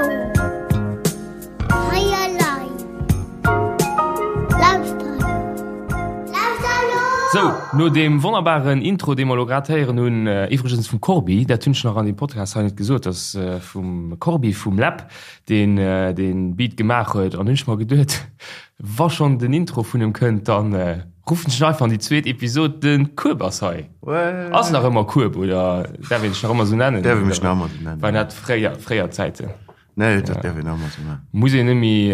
Lauschtert elo! Hei elei! Lauschtert! Lauschtert elo! Sou, no deem wonnerbaren Intro, dee mer elo grad héieren hunn, iwwregens vum Corbi, dat hunn ech nach an deem Podcast hei net gesot, dass vum Corbi vum Läb, deen dee Beat gemaach huet, an hunn ech mer geduet, wa schonn den Intro vun em kënnt, dann ruffen ech en einfach an déi zweet Episod, de Kueb ass hei. Ass nach ëmmer Kueb, oder däerf een dech nach ëmmer esou nennen? Däerf ee mech nach ëmmer esou nennen. Waren dat fréier, fréier Zäiten? Nee, dat däerf een nach ëmmer esou nennen. Muss een net méi,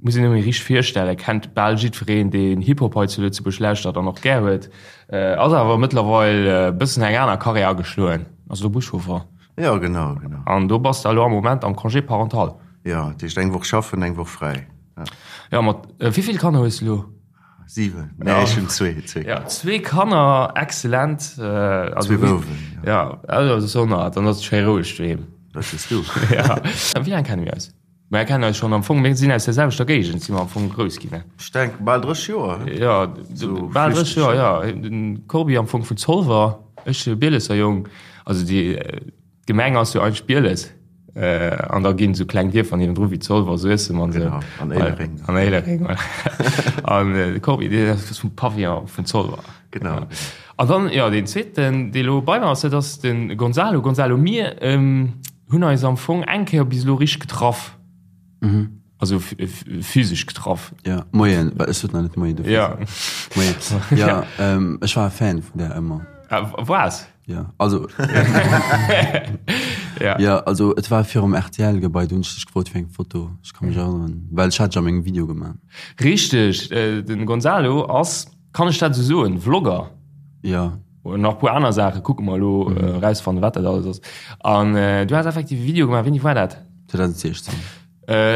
muss een net méi richteg virstellen, kennt bal jiddwereen, deen Hip-Hop hei zu Lëtzebuerg lauschtert an och gär huet. Ass awer mëttlerweil e bëssen eng aner Karriär ageschloen, ass elo Buschauffer. Jo, genau, genau. An do bass de elo am Moment am Congé parental. Jo, dat heescht eng Woch schaffen, eng Woch fräi. Ja. Jo, mat wéi vill Kanner hues de elo? 7, nee ech hunn zwee, zwee Kanner. Ja, zwee Kanner, excellent. Zwee Bouwen, jo. Ja, also sonner, dann ass et schéi roueg doheem. Dat sees du. Ja. Wéi laang kenne mir eis? Mir kennen eis schonn am Fong, mir sinn aus der selwechter Géigend, si mer am Fong grouss ginn, ne? Ech denken bal 30 Joer, he? Ja, bal 30 Joer, ja. Den Corbi am Fong vun Zolwer, ech Bielesser Jong, also déi. D'Gemeng ass jo eigentlech Bieles, an da ginn esou kleng Dierfer niewendru wéi Zolwer, Suessem an esou. Genau, an Éilereng. An Éilereng, voilà. An de Corbi, deen ass vum Pavillon vun Zolwer. Genau. An dann, jo, deen zweeten, dee lo bei mer ass, dat ass de Gonzalo. Gonzalo, mir hunn eis am Fong eng Kéier bis elo richteg getraff. Also physesch getraff. Ja, moien, well ech sot nach net moien dofir. Ja. Moien. Ja, ech war e Fan vun där ëmmer. Waars? Ja, also. Ja. Ja, also et war virum RTL-Gebai, do hunn ech dech gefrot fir eng Foto. Ech ka mech erënneren, well ech hat dech a mengem Video gemaach. Richteg, den Gonzalo ass, kann ech dat esou soen, Vlogger? Ja. Und nach puer aner Saachen, kucke mer elo, erausfannen, wat dat alles ass. An du has effektiv e Video gemaach, wéini war dat? 2016.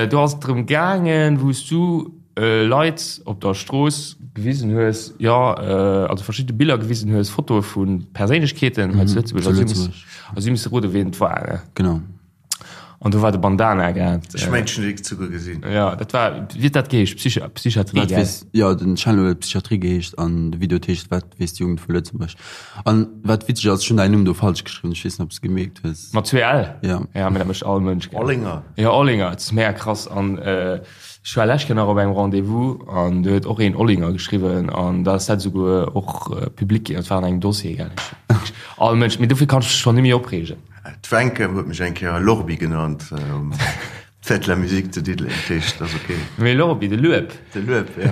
Do ass et drëm gaangen, wou s du Leit op der Strooss gewisen hues, jo, also verschidde Biller gewisen hues, Fotoe vu Perséinlechkeeten hei zu Lëtzebuerg. Zu Lëtzebuerg. A si musse roden, wien et war, ne? Genau. An do war de Bandana grad. Ech mengen, ech hunn dee souguer gesinn. Jo, dat war, wéi huet dat geheescht? Psychi-, Psychiatrie, Wat gell? weess, jo, den Channel huet Psychiatrie geheescht an de Video huet heescht Wat weess d'Jugend vu Lëtzebuerg? An wat witzeg ass, ech hunn däin Numm do falsch geschriwwen, ech weess net, ob s de gemierkt hues. Mat zwee L? Ja. Ja, mee dat mécht all Mënsch, gell? Olinger. Ja, Olinger, et ass mega krass. An ech war lescht Kéier nach op engem Rendez-vous an do huet och een Olinger geschriwwen an da ass dat esouguer och public ginn. Dat war an engem Dossier, gell? All Mënsch, mee dofir kann ech mech schonn net méi opreegen. D'Wencke huet mech eng Kéier Lorbi genannt. D'Fête de la Musique zu Diddeleng, dat heescht, dat ass ok. Mee Lorbi, de Lueb. De Lueb, ja.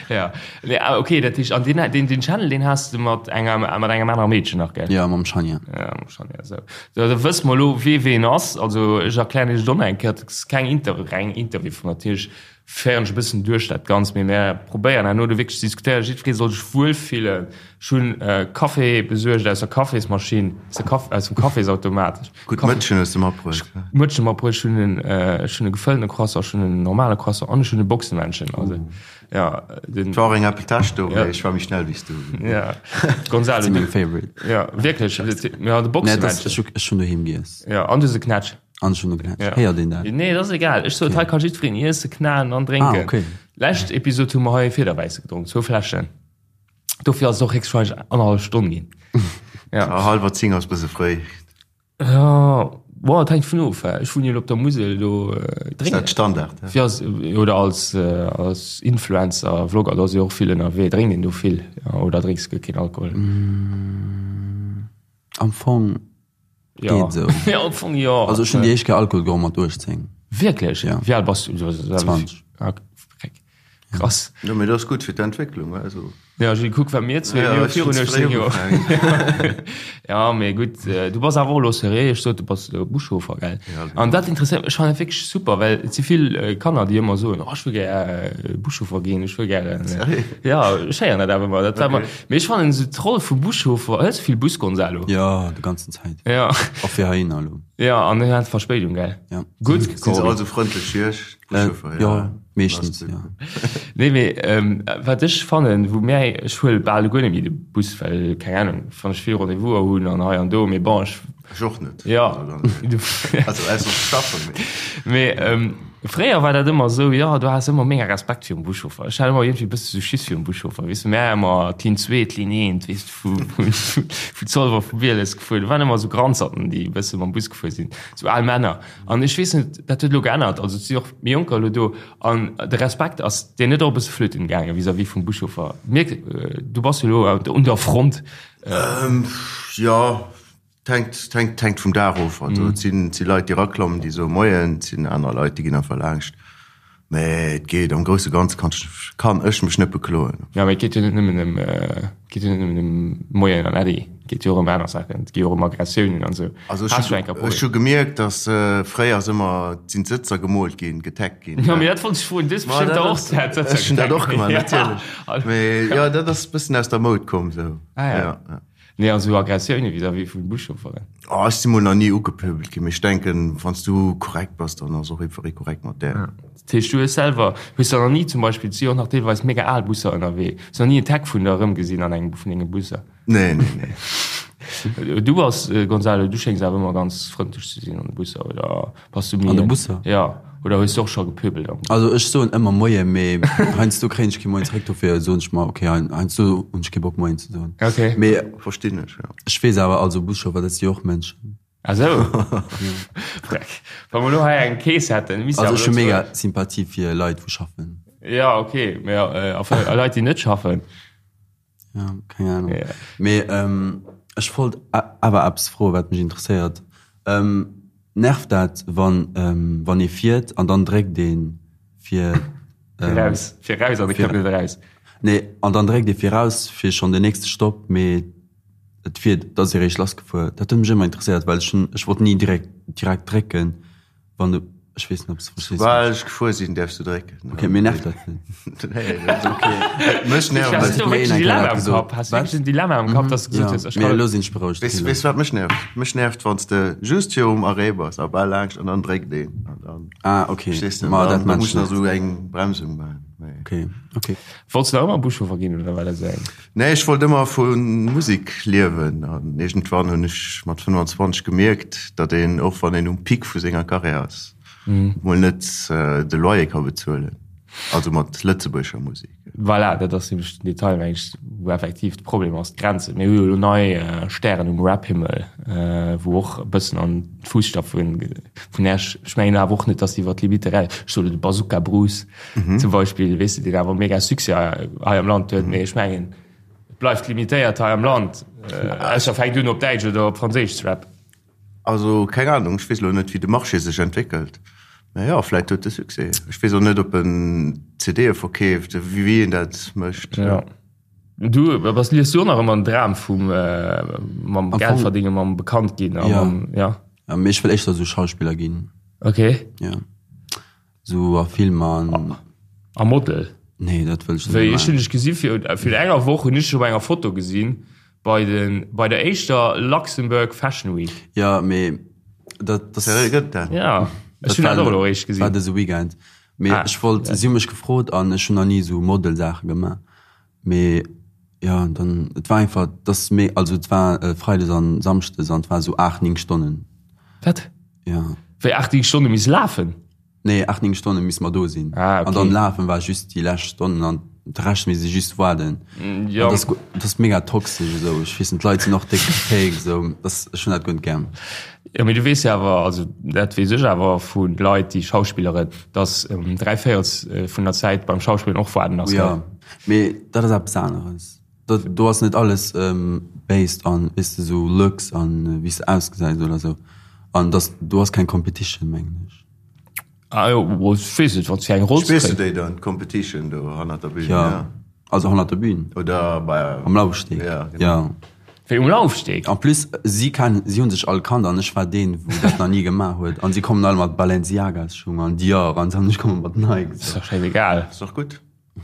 Ja, nee, ah, ok, dat heescht, an deen, deen, deen Channel, deen has de mat enger, mat engem anere Meedchen nach, gell? Ja, mam Shania. Ja, mam Shania, esou. Da, da wësse mer elo, wee ween ass. Also, ech erklären iech et och nach eng Kéier, et ass keng Inter-, reng Interview vun natierlech féieren ech e bëssen duerch dat Ganzt, mee mär probéieren herno do wierklech ze diskutéieren. Jiddweree soll sech wuelfillen. Ech hunn Café besuergt aus der Cafésmaschinn, aus der Kaf-, aus dem Cafésautomat. Gutt Mëtschen hues de matbruecht. Mëtschen matbruecht, ech hunn en, ech hunn e gefëllene Croissant, ech hunn en normale Croissant an ech hunn e Boxemännchen. Also, ja, den. Et war och eng Apple Täsch do, mee ech war méi schnell wéi s du. Ja, Gonzalo. Dat si meng Favorite. Ja, wierklech, ja, de Boxemännchen. Nee, ech hunn doheem giess. Ja, an du hues e Knätsch. An ech hunn e Knätsch. Héiert een dat? Nee, dat ass egal. Ech sot, hei ka jiddwereen iessen, knaen an drénken. Ah, okay. Lescht Episod hu mer hei e Fiederwäisse gedronk, zwou Fläschen. Dofir ass et och héchstwahrscheinlech annerhallef Stonn ginn. Ja. Ah, hallwer 10 ass bësse fréi. Ja, boah, et hänkt vun of. Ech wunnen jo elo op der Musel, do äh, drénken. Ass dat Standard? Ja? Fir als, oder als, äh, als Influencer, Vlogger, do ass jo och vill ënnerwee. Drénkt een do vill? Ja, oder drénks guer keen Alkohol? Mm, am Fong Ja. Geet esou. Ja, am Fong jo. Also ech hunn déi éischt Kéier Alkohol geholl mat 18. Wierklech? Ja. Wéi al bass du? 20. Ah, freck. Krass. Jo, mee dat ass gutt fir d'Entwécklung, also. Ja, Gilles, kuck, wat mir zwee, Ja, mir hu ech hunn virun ze 18 fréi Joer. ugefaangen. Ja, mee gutt, du bass awer och elo seriö, ech sot, du bass elo Buschauffer, gell? Ja, genau. An dat interesséiert mech, ech fannen dat wierklech super, well et si vill Kanner, déi ëmmer soen, oh, ech wëll gär Buschauffer ginn, ech wëll gären. Seriö? Ja, ech héieren dat awer ëmmer. Dat war Okay. ëmmer, mee ech fannen esou d'Roll vum Buschauffer, hëls du vill Bus, Gonzalo? Ja, de ganzen Zäit. Ja. Och fir heihinner elo. Ja, an du hat Verspéidung, gell? Ja. Gutt, Sinn se all sou frëndlech wéi ech, d'Buschauffere? Ja, meeschtens, ja. Nee, mee wat ech fannen, wou mär, ech huele bal guer net méi de Bus, well, keng Ahnung, wann ech vill Rendez-vouser hunn an hei an do, mee bon, ech. Ech och net. Ja. Also ausser ze schaffen, mee. Mee. Fréier war dat ëmmer esou, jo, du has ëmmer mega Respekt virum Buschauffer. Ech hat ëmmer iergendwéi e bësse sou Schiss virum Buschauffer, weess de. Mär ëmmer d'Linn 2, d'Linn 1, weess de, vu, vu, vu Zolwer, vu Bieles gefuer. Do waren ëmmer sou Granzerten, déi e bësse mam Bus gefuer sinn, sou al Männer. An ech weess net, dat huet elo geännert, also et si och méi Jonker elo do. An de Respekt ass dir net och e bësse flöten gaange vis-à-vis vum Buschauffer? Mierk, du bass jo elo un der Front. Jo. Et hänkt, hänkt vum Dag of. Also et sinn, et si Leit, déi eraklammen, déi soe Moien, et sinn aner Leit, déi ginn einfach laanscht. Mä et geet, am grousse Ganze kann ech, kann ech mech net bekloen. Jo, mä et geet jo net nëmmen ëm, et geet jo net nëmmen ëm Moien an Äddi, et geet jo och ëm aner Saachen, et geet jo och ëm Aggressiounen an esou. Also ech hu, ech hu gemierkt, datt fréier ass ëmmer, sinn d'Sëtzer gemoolt ginn, getaggt ginn. Jo, mä dat wollt ech froen, du hues bestëmmt der och d'Sëtzer getaggt. Ech hunn dat och gemaach, natierlech. Mä jo, dat ass e bëssen aus der Moud komm esou. Ah ja. Ja. Nee, also Aggressioune vis-à-vis vu Buschaufferen. Oh, ech si mol nach ni ugepöbelt ginn, mee ech denken, wann s du korrekt bass, dann ass och jiddweree korrekt mat där. Dat heescht, du hues selwer, hues der nach ni zum Beispill, et si jo och nach deelweis mega al Busser ënnerwee, hues nach ni en Tag vun der erëmgesinn an engem vun denge Busser? Nee, nee, nee. Du bass, Gonzalo, du schéngs awer ëmmer ganz frëndlech ze sinn an de Busser, oder? Bass du méi An de Busser? Ja. Oder hues du och scho gepöbelt am Bus? Also ech soen ëmmer Moie, mee heiansdo kréien ech kee Moien zeréck, dofir soen ech mer, okay, heiansdo hunn ech kee Bock Moien ze soen. Okay. Mee Verstinn ech, jo. Ech weess awer, also Buschauffer, dat si jo och Mënschen. Ah sou. Freck. Wa mer elo hei eng Kees hätten, misst Also ech hu mega Sympathie fir Leit wou schaffen. Ja, okay, mee a Leit déi net schaffen? Ja, keng Ahnung. Ja. Mee ähm, ech wollt awer eppes froen, wat mech interesséiert. Ähm, nervt dat, wann, ähm, wann ee fiert an dann dréckt een fir ähm, raus, fir raus an de kënnt net eraus? Nee, an dann dréckt ee fir raus fir schonn den nächste Stopp, mee et fiert, et ass eréischt lassgefuer. Dat huet mech ëmmer interesséiert, well ech hunn, ech wollt ni direkt, direkt drécken. Wann du, ech weess net, ob s du verstees. Soubal ech gefuer sinn, däerfs du drécken. Ok, mir nervt dat net. Nee, dat ass ok. Mech nervt Hast du wierklech en Dilemma am Kapp? Hast du wierklech en Dilemma am Kapp, dass du gesot hues, ech kann. Elo sinn ech berouegt. Weess weess wat mech nervt? Mech nervt, wann s de just virum Arrêt bass a bal laanscht an dann dréckt een. An dann. Ah, ok. Verstees de? Ma dat maachen ech net. Da muss nach esou eng Bremsung maachen. Ok, ok. Wollts du nach ëmmer Buschauffer ginn oder war dat esou eng? Nee, ech wollt ëmmer vu Musek liewen an iergendwann hunn ech mat 25 gemierkt, datt een, och wann een um Pic vu senger Karriär ass, mol net de Loyer ka bezuelen, also mat lëtzebuergescher Musek. Voilà, dat ass nämlech den Detail, meng ech, wou effektiv de Problem ass, d'Grenzen. Mir hu jo elo nei Stären um Rap-Himmel, wou och e bëssen an d'Fusstapfe vun Esch, ech mengen awer och net, datt déi iwwer d'Limitte eraus, ech soen elo de Bazooka Bruce, Zum Beispill, weess de, deen awer mega Succès hei am Land huet, mee ech mengen, et bleift limitéiert hei am Land, ausser fänkt un op Däitsch oder op Franséisch ze rappen. Also keng Ahnung, ech weess elo net, wéi de Marché sech entwéckelt, mä jo, vläit huet e Succès. Ech weess och net, ob en CDe verkeeft, wéi en dat mécht. Jo. Du, bass, liefs du och nach ëmmer den Dram vum mam Geld verdéngen, mam bekannt ginn a mam, ja? Jo, mee ech wëll éischter esou Schauspiller ginn. Okay. Jo. Sou a Filmer an. A Model? Nee, dat wëll ech net Wéi, ech hunn dech gesi fir, fir enger Woch hunn ech dech op enger Foto gesinn bei den, bei der éischter Luxembourg Fashion Week. Ja, mee dat, dat. Seriö, gëtt dat? Ja, ech hunn dat och elo eréischt gesinn. War dëse Weekend. Mee ah, ech wollt, ja. Si hu mech gefrot an ech hunn nach ni sou Model-Saache gemaach. Mee ja, dann, et war einfach, dass méi, also et war äh, Freides an Samschdes an et war sou 8, 9 Stonnen. Wat? Ja. Wéi 8, 9 Stonne miss lafen? Nee, 8, 9 Stonne miss mer do sinn. Ah, okay. An dann lafen war just déi lescht Stonnen an de Rescht misst ee just waarden. Mm, ja. An das, das ass mega toxesch esou. Ech weess net, d'Leit sinn och déck fake esou. Das, ech hunn dat guer net gär. Jo, mee du weess jo awer, also dat weess ech awer vu Leit, déi schauspilleren, dass dräivéierels vun der Zäit beim Schauspillen och waarden ass, gell? Jo, mee dat ass eppes aneres. Dat, do ass net alles based on, weess de, sou looks an wéi s de ausgesäis oder sou. An dass, do ass keng Competition, mengen ech. Ah jo, ech weess net, wann s fir eng Roll ze Spills du kréien. déi dann, d'Competition do hannert der Bühn? Jo, also hannert der Bühn. Oder bei. Am Laufsteg. Ja, genau. Jo. Wéi um Laufsteg? En plus, si kennen, si hunn sech all kannt an ech war deen, wou dat nach ni gemaach huet. An si kommen all mat Balenciagas-Schung an Dior an ech komme mat Nike. Ass dach schäisegal. Ass dach gutt.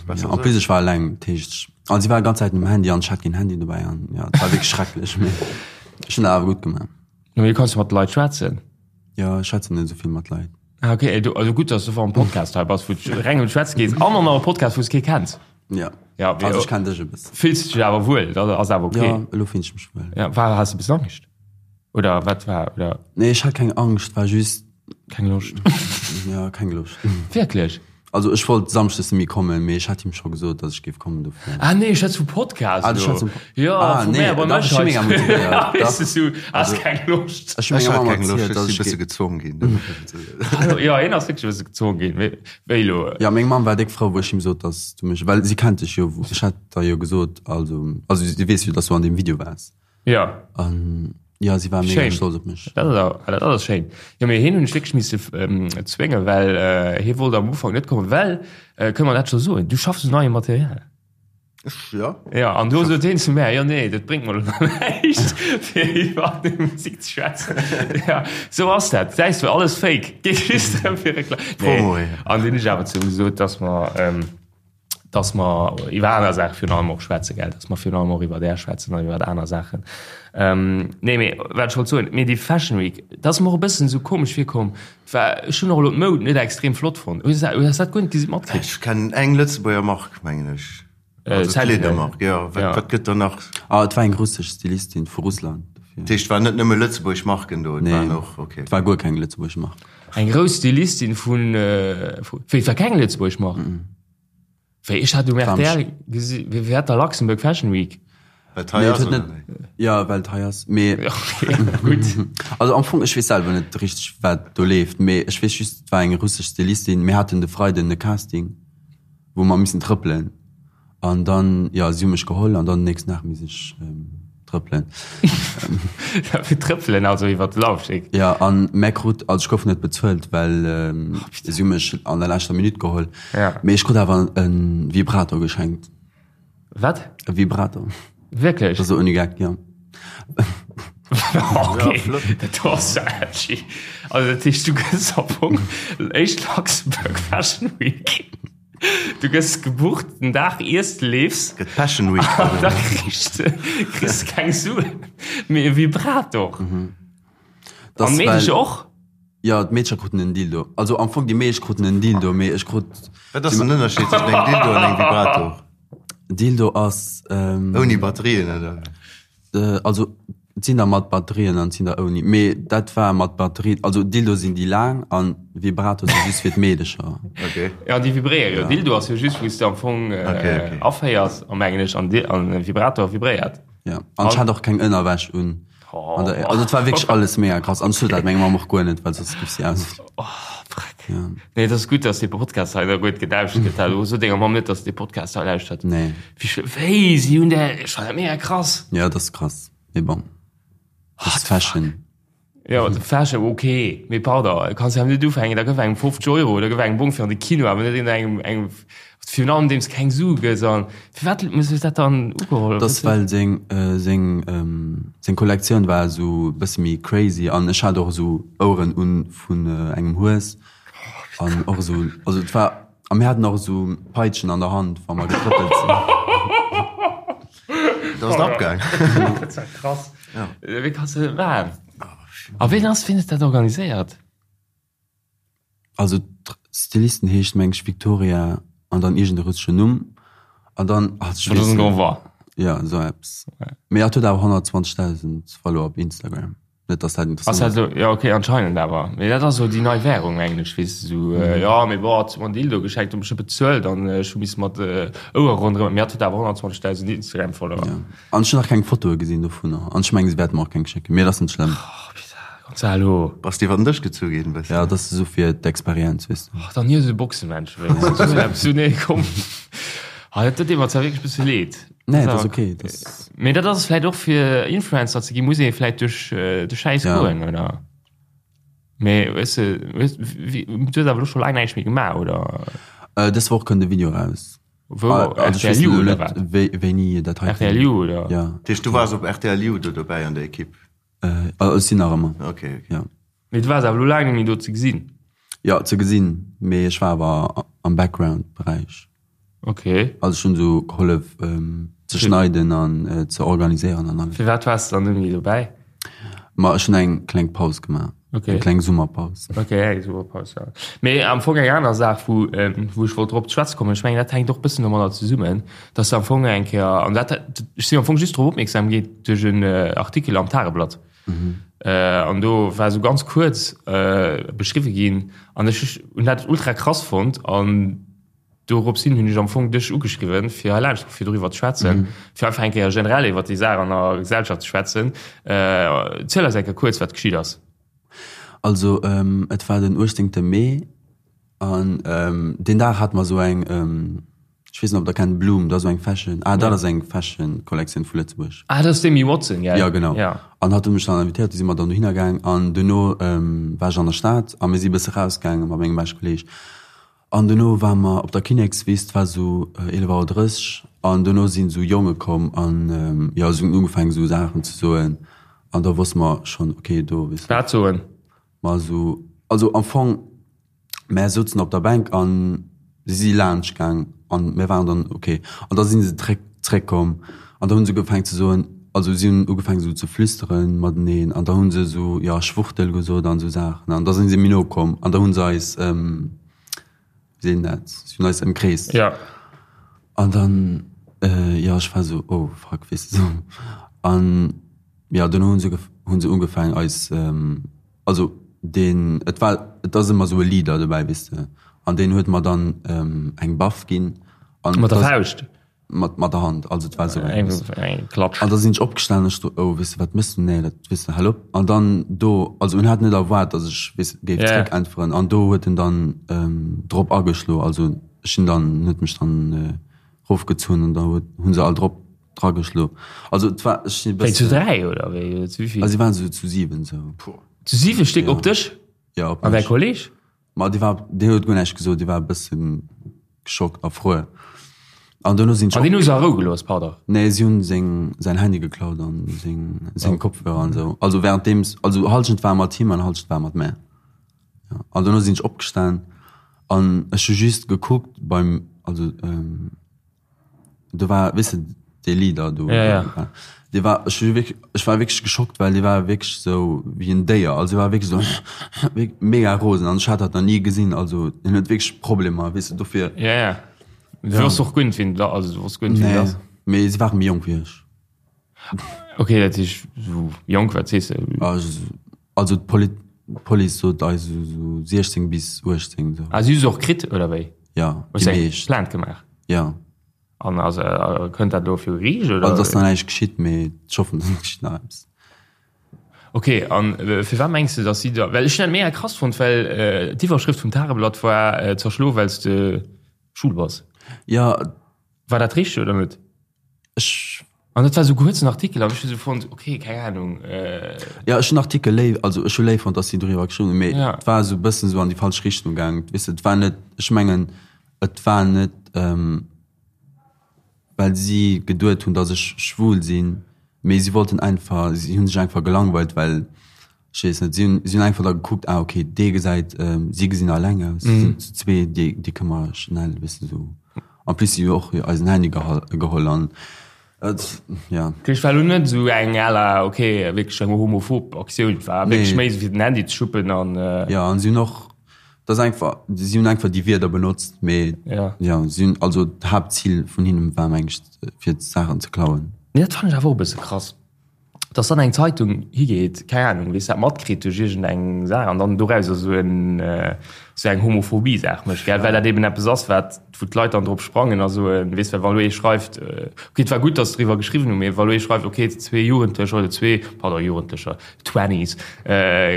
Ja, en plus ech war eleng, dat heescht, an si war ganz Zäit um Handy an ech hat keen Handy dobäi an ja, et war wierklech schrecklech, mee ech hunn dat awer gutt gemaach. Mee du kanns jo mat de Leit schwätzen. Jo, ech schwätzen net esou vill mat Leit. Ah, okay, du, also gutt, dass du am Podcast hei bass, wou du reng ëm d'Schwätze gees an an am Podcast, wou s kee kenns. Ja. Ja, also ech kenn dech e bëssen. Fills du dech awer wuel, dat ass awer okay. Ja, elo fillen ech mech wuel. Ja, war, has du e bëssen Angscht? Oder wat war, oder? Nee, ech hat keng Angscht, war just. Keng Loscht. Ja, keng Loscht. Wierklech? Also ech wollt Samschdes net méi kommen, mee ech hat him scho gesot, dass ech géif kommen dofir. Ah nee, ech schwätz vum Podcast Ah, du elo. schwätz vum Jo, Ah vu nee, mär, bei dach, mech ech hu hei. mega motivéiert, Weess dach. de, du has keng Loscht. Ech hu Ech menger hat Mamm keng Loscht, erzielt, ech dass si ech bësse géif. gezwong ginn dofir. Hallo, jo, hien ass wierklech e bësse gezwong ginn. Wéi, wéi elo? Ja, meng Mamm war déck frou, wou ech him sot, dass du mech, well si kennt dech jo, ech hat der jo gesot, also, also si weess jo, dass du an deem Video waars. Ja. An ja, si war mega stolz op mech. Dat ass, dat ass schéin. Jo, mee hien hunn ech wierklech misse zwéngen, well hie wollt am Ufank net kommen, well, kënne mer dat scho soen, du schaffs un neiem Material. Ech, ja. Ja, an do sot hien zu mär, jo nee, dat bréngt mer elo näischt, fir iwwer déi Musek ze schwätzen. Ja, sou ass dat. Säis du, alles fake. Geet just drëm fir Reklam. Nee. Promo, ja. An dunn hunn ech awer zu him gesot, dass mer, dass mer iwwer aner Saache virun allem och schwätzen, gell, dass mer virun allem och iwwer Är schwätzen an iwwer aner Saachen. Ähm, nee, mee wat ech wollt soen, mee déi Fashion Week, dat ass mer och e bëssen esou komesch virkomm, war, ech hunn och elo d'Moud net extrem flott fonnt. Hues du dat, hues dat guer net gesi matkritt? Ech kennen eng Lëtzebuerger Mark, mengen ech. Äh, Also Sentinel. Kleedermark, jo. Wat, Ja. wat gëtt da nach? Ah, et war eng russesch Stylistin vu Russland. Dofir. Dat heescht, et waren net nëmme lëtzebuergesch Marken do, et Nee, waren och, okay. et war guer keng lëtzebuergesch Mark. Eng grouss Stylistin vun, vu, wéi, et war keng lëtzebuergesch Mark? Wéi, ech hat um rtl gesi, wéi hat der Luxembourg Fashion Week? Well et hei ass, oder wéi? Jo, well et hei ass, mee. Okay, gutt. Also am Fong, ech weess selwer net richteg, wat do leeft, mee ech weess just, et war eng russesch Stylistin. Mir haten de Freiden e Casting, wou mer missen trëppelen. An dann, jo, si hu mech geholl an dann den nächsten Dag misst ech trëppelen. Fir trëppelen, also iwwer de Laufsteg? Jo, an mä krut, also ech gouf net bezuelt, well si hu mech an der leschter Minutt geholl. Ja. Mee ech krut awer e Vibrator geschenkt. Wat? E Vibrator. Wierklech? Dat ass ouni Geck, jo. Okay, dat ass ja edgy. Also dat heescht, du gëss am Fong éischt Luxembourg Fashion Week. Du gëss gebucht den Dag iers de leefs. Gëtt Passion Week. An da kriss de kriss keng Suen, mee e Vibrator. Mhm. An d'Meedecher och? Jo, d'Meedecher kruten en Dildo. Also am Fong déi meescht kruten en Dildo, mee ech krut. Wat ass den Ënnerscheed tëschent engem Dildo an engem Vibrator? Dildo ass. Ouni Batterien, oder? Also et sinn der mat Batterien an et sinn der ouni. Mee dat war mat Batterien. Also Dildo sinn déi laang an Vibrator si just fir d'Meedecher. Okay. Ja, déi vibréiere jo. Dildo ass jo just wou s de am Fong Okay, okay. aféiers, a mengen ech, an an Vibrator vibréiert. Ja, an ech hat och keng Ënnerwäsch un. An der, also et war wierklech alles mega krass. An ech sot dat menger Mamm och guer net, well soss géif si ausflippen. Oh, Freck. Ja. Nee, et ass gutt, dass dee Podcast hei da guer net gelauschtert gëtt. Also so denger Mamm net, dass de Podcast hei lauschtert. Nee. Wéi schlëmm. Wéi, si hunn där, ech fannen dat mega krass. Ja, dat ass krass. Mee bon. Dat ass Fashion. Ja, Fashion, okay. Mee pardon, kanns jo awer net ufänken, da gëff engem 50 Euro oder gëff engem Bong fir an de Kino, awer net engem, engem, virun allem deem s keng Sue gëss. An firwat muss ech dat dann ugeholl? Dat ass well seng, seng, seng Kollektioun war esou e bësse méi crazy an ech hat och esou Oueren un vun engem Hues an och esou, also et war, a mir haten och esou Peitschen an der Hand wa mer getrëppelt sinn. Dat ass abgaang. Dat war krass. Wéi kanns de dat maachen? A ween ass, ween huet dat organiséiert? Also d'Stylistin heescht meng ech Victoria an dann iergend e russeschen Numm an dann, ach ech weess net. Ja esou eppes. Mee hatt huet awer 120.000 Follower op Instagram. Net dass dat interessant ass. Ass dat jo, okay, anscheinend awer. Mee dat ass esou déi nei Währung, mengen ech, weess de, esou, jo, mee bon, hat mer en Dildo geschenkt, hu mech net bezuelt an ech hu misse mat Ouere ronderëm, mee hatt huet awer 120.000 Instagram-Follower. Ja. An ech hunn nach keng Fotoe gesinn dovunner an ech mengen, se wäerte mer och keng schécken, mee dat ass net schlëmm. Oh, putain, Gonzalo. Bass de iwwer den Dësch gezu ginn, bëssen? Ja, dat ass esou fir d'Experienz, weess de. Och, dann hie esou Boxemensch, wéinstens. Esou eppes, nee, komm. Ah, dat deet mer zwar wierklech e bësse leed. Nee, dat ass okay. Das Mee dat ass vläit och fir Influencer ze ginn, muss ee vläit duerch de Schäiss Ja. goen, oder? Mee weess de, weess, wéi, du hues awer elo scho laang näischt méi gemaach, oder? Äh, dës Woch kënnt e Video raus. Wou? Ah, also ech RTL weess You elo oder net, wat? wéi, wéini dat hei RTL You, oder? Ja. Dat heescht, du waars op RTL You do dobäi an der Ekipp? Äh, also ech sinn nach ëmmer. Okay, okay. Ja. Mee du waars awer elo laang net méi do ze gesinn. Jo, ze gesinn, mee ech war awer am Background-Beräich. Okay. Also ech hunn esou gehollef ze schneiden an ze organiséieren an alles. Firwat waars de dann net méi dobäi? Ma ech hunn eng kleng Paus gemaach. Okay. Eng kleng Summerpaus. Okay, eng Summerpaus, ja. Mee am Fong eng aner Saach, wou, wou ech wollt drop ze schwätze kommen, ech mengen, dat hänkt och e bëssen domadder zesummen, dass de am Fong eng Kéier, an dat, ech sinn am Fong just drop opmierksam ginn duerch en Artikel am Tageblatt. An do war esou ganz kuerz beschriwwe ginn an ech hunn dat ultra krass fonnt an dorops hin hunn ech am Fong dech ugeschriwwen, fir hei laanscht fir doriwwer ze schwätzen, fir einfach eng Kéier generell iwwer déi Saach an der Gesellschaft ze schwätzen. Ziel eis eng Kéier kuerz, wat geschitt ass. Also et war den 18. Mee an deen Dag hate mer esou eng, ech weess net ob der kennt, Bloom, dat ass esou eng Fashion, ah dat ass eng Fashion Kollektioun vu Lëtzebuerg. Ah dat ass d'Amy Watson, gell? Jo genau. An hatt huet mech dann invitéiert, du si mer dann dohinner gaang an duerno war ech an der Stad a mir si bësse rausgaange mat mengem beschte Kolleeg an duerno ware mer op der Kinnekswiss, et war esou 11 Auer 30 an duerno sinn esou Jonge komm an jo si hunn ugefaangen esou Saachen ze soen an da wosste mer schonn okay do weess de. Wat soen? Ma esou, also am Fong, mär souzen op der Bänk an si si laanscht gaang an mär waren dann ok. An da si se zréck, zréckkomm an da hu se ugefaangen ze soen, also si hunn ugefaangen esou ze flüsteren mateneen an da hu se esou, jo, Schwuchtel gesot an esou Saachen an da si se méi no komm an da hu se eis, wéi seet een dat, si hunn eis ëmkreest. Jo. An dann, jo, ech war esou, oh fuck, weess de, esou an. Jo, duerno hunn se hunn se ugefaangen eis, also deen, et war, et ass ëmmer esou e Leader dobäi, weess de, an deen huet mer dann eng Baff ginn. An Mat der Fauscht? Mat mat der Hand, also et war esou eng, weess de. Eng Klatsch. An da sinn ech opgestanen, ech do, oh, weess de, wat méchs du, nee, dat, weess de, hal op. An dann do, also en hat net erwaart, datt ech, weess de, géif zréckäntweren, an do huet en dann drop ageschlo, also ech sinn dann, en huet mech dann rofgezunn an da huet, hu se all drop Drageschlo. Also et war, ech sinn e Wéi zu bëssen. 3 oder wéi oder zu wéivill? Also si waren sou zu 7 sou. Zu 7 Stéck op dech? Ja, op An däi mech. Kolleg? Ma dee war, deen huet guer näischt gesot, dee war e bëssen geschockt a frou. An duerno sinn ech An deen hu se a Rou gelooss, pardon? Nee, si hunn seng, säin Handy geklaut an seng, seng Kopfhörer an sou. Also währenddeems, also Hallschent war mat him an Hallschent war mat mär. Ja. An duerno sinn ech opgestan an ech hu just gekuckt beim, also Do war, weess de, dee Leader do. Ja, ja. Dee war, ech hu wierklech, ech war wierklech geschockt, well dee war wierklech sou wéi en Déier. Also, e war wierklech sou mega rosen an ech hat dat nach ni gesinn. Also, deen huet wierklech Problemer, weess de, dofir. Ja, ja. Du wosst och guer net, wien dat, also du wosst guer net, wien dat ass. Nee, mee se ware méi jonk wéi ech. Ok, dat heescht, sou jonk, wat sees de? Also, d'Police sot eis sou 16 bis 18, sou. Ah, si hu se och kritt, oder wéi? Ja, déi meescht. Plainte gemaach? Ja. An ass, kënnt dat elo viru Geriicht, oder? Also, et ass nach näischt geschitt, mee ech hoffen, et geschitt nach eppes. Ok, an firwat mengs de, datt si da, well ech hunn dat mega krass fonnt, well d'Iwwerschrëft vum Tageblatt war zerschlo well s de schwul bass. Ja. War dat richteg oder net? Ech. An dat war esou kuerzen Artikel an ech hu sou fonnt, ok, keng Ahnung. Ja, ech hunn Artikel léif, also ech hu léif fonnt, datt si doriwwer geschriwwen hunn, mee et war esou e bëssen esou an déi falsch Richtung gaangen. Weess de, et war net, ech mengen, et war net, well si geduet hunn, datt ech schwul sinn, mee si wollten einfach, si hu sech einfach gelangweilt, well Ech weess net, si hunn, si hunn einfach da gekuckt, ah okay, dee gesäit, si gesinn alleng aus, si sinn zu zwee, déi, déi kënne mer schnell e bëssen esou. En plus si hu och eisen Handy gehal, geholl an et, ja. Dat heescht, war elo net esou eng à la, ok, wierklech eng homophob Aktioun, et war wierklech méi esou fir den Handy ze schuppen an. Jo, an si hunn och, dat ass einfach, si hunn einfach déi Wierder benotzt, mee jo, si hunn, also d'Haaptzil vun hinnen war meng ech, fir d'Saachen ze klauen. Mee dat fannen ech awer och e bësse krass. dass dann eng Zeitung higeet, keng Ahnung, weess dat matkritt duerch iergendeng Saach an dann dorauser esou en esou eng Homophobie-Saach mécht, gell, well dat eben eppes ass, wat wou d'Leit dann drop sprangen a soen, weess, well wa elo ee schreift, okay, et war gutt, dass se driwwer geschriwwen hunn, mee wa elo ee schreift, okay, zwee Jugendlecher oder zwee, pardon, Jugendlecher, Twenties,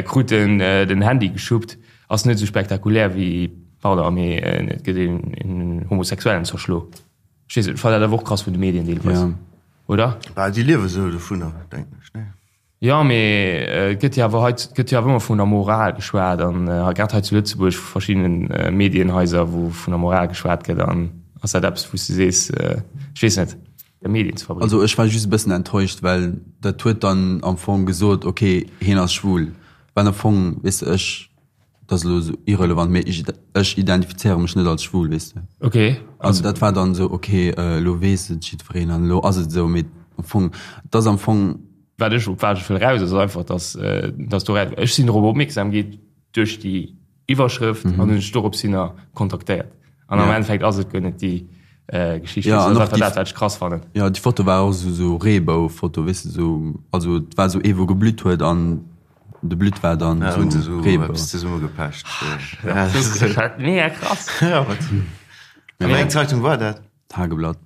kruten den Handy geschuppt, ass net esou spektakulär wéi, pardon, mee et gëtt een Homosexuellen zerschlo. Ech weess net, ech fannen dat awer och krass vun de Medien deelweis. Oder? Bah, déi liewe sou dovunner, denken ech, nee? Jo, mee et gëtt jo awer hei, et gëtt jo awer ëmmer vun der Moral geschwat an grad hei zu Lëtzebuerg vu verschiddenen Medienhaiser, wou vun der Moral geschwat gëtt an ass dat eppes, wou s de sees, ech weess net, der Medien ze verbreeden? Also ech war just e bëssen enttäuscht, well dat huet dann am Fong gesot, okay, hien ass schwul, well am Fong, weess de, ech Dat ass elo esou irrelevant, mee ech, ech identifizéiere mech net als schwul, weess de. Okay. Also dat war dann esou, okay, elo weess et jiddwereen an elo ass et esou, mee am Fong, et ass am Fong. Wat ech, op wat ech wëll eraus, ass einfach, dass, dass do, ech sinn dorop opmierksam gi duerch déi Iwwerschrëft an hunn ech dorops hinner kontaktéiert. An am Endeffekt ass et guer net déi. Geschicht. Ja, an och dat, wat ech krass fannen. Ja, déi Foto war och esou sou Reebou-Foto, weess de, sou, also et war sou ee wou geblütt huet an de Blütt war dann ja, sou sou Reebou. Eppes zesummegepecht. Ja, das ist halt mega krass. Ja, wat? Ja, wéi eng Zeitung war dat? Tageblatt.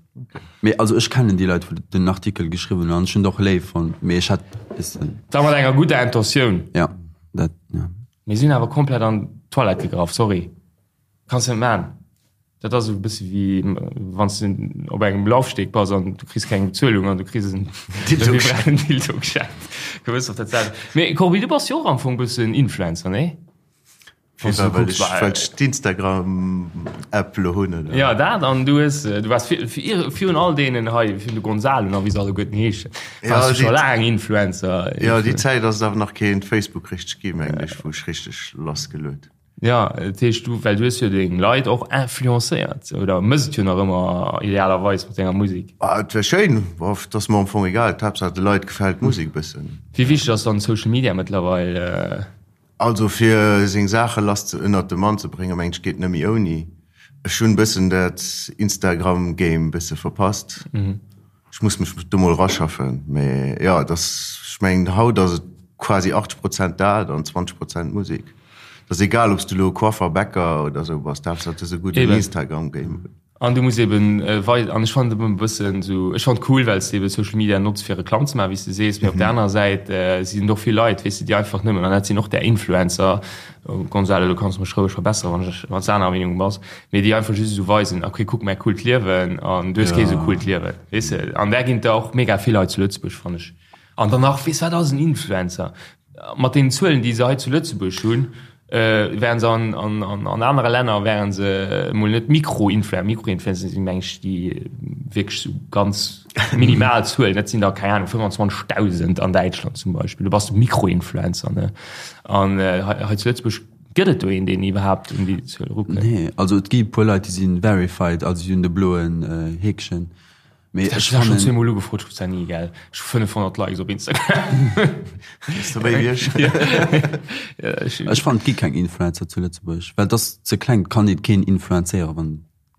Mee also ech kennen déi Leit, wou den Artikel geschriwwen hunn an ech hunn et och léif fonnt, mee ech hätt weess de. Da mat enger gudder Intentioun. Ja, dat, ja. Mee si hunn awer komplett an d'Toilette gegraff, sorry. Kanns net maan. Dat ass esou e bësse wéi wann s de op engem Laufsteg bass an du kriss keng Bezuelung an du kriss en Dildo geschenkt. Gewëss och dat selwecht. Mee Corbi, du bass jo och am Fong e bëssen Influencer, nee? Wann s du kucks, well ech d'Instagram-App elo hunn, oder? Jo, dat an du hues, du waars virun all deenen hei, virun de Gonzalo a wéi se alleguerten heeschen, waars du scho laang Influencer. Jo, déi Zäit ass et awer nach keen Facebook richteg gi, mengen ech, wou ech richteg lassgeluet. Jo, dat heescht du, well du hues jo deng Leit och influencéiert oder mëss et jo nach ëmmer idealerweis mat denger Musek. Ah, et wär schéin, bof, et ass mer am Fong egal, d'Haaptsaach de Leit gefält d'Musek e bëssen. Wéi wichteg ass dann Social Media mëttlerweil? Also fir seng Saache lass ze, ënnert de Mann ze bréngen, mengen ech geet net méi ouni. Ech hunn bëssen dat Instagram Game bësse verpasst. Ech muss mech do mol raschaffen, mee jo, et ass, ech mengen haut ass et quasi 80 Prozent dat an 20 Prozent Musek. Et ass egal, ob s du elo Coiffer, Bäcker oder esou bass, d'Haaptsaach du hues e gudden Instagram-Game. An du muss eben wei, an ech fannen et e bëssen esou, ech fannen et cool, well s de eben Social Media notz fir Reklamm ze maachen, wéi s de sees, mee op der anerer Säit sinn et och vill Leit, weess de, déi einfach nëmmen, an dat sinn och där Influencer, Gonzalo, du kanns mech roueg verbesseren, wann ech, wann s de anerer Meenung bass, mee déi einfach just esou weisen, okay, kuck mäi coolt Liewen an du hues kee esou coolt Liewen, weess de. An där ginn et der och mega vill hei zu Lëtzebuerg, fannen ech. An dann nach, weess wat ass en Influencer? Mat deenen Zuelen, déi se hei zu Lëtzebuerg hunn, wären se an, an, an, an anere Länner wären se emol net Mikroinfluencer. Mikroinfluencer sinn, meng ech, déi wierklech esou ganz minimal Zuelen, dat sinn der, keng Ahnung, 25.000 an Däitschland zum Beispill. Do bass du Mikroinfluencer, ne? An hei zu Lëtzebuerg gëtt et do een, deen iwwerhaapt un déi Zuel erukënnt? Nee, also et gi e puer Leit, déi si verified, also si hunn de bloen Heekchen. Mee ech fannen. Ech hu schonn zweemol ugefrot, ech krut ni, gell. Ech hu 500 Likes op Instagram. Bass du méi wéi ech? Ech fannen, et gi keng Influencer zu Lëtzebuerg, well et ass ze kleng, et kann ee keen influenzéieren, wann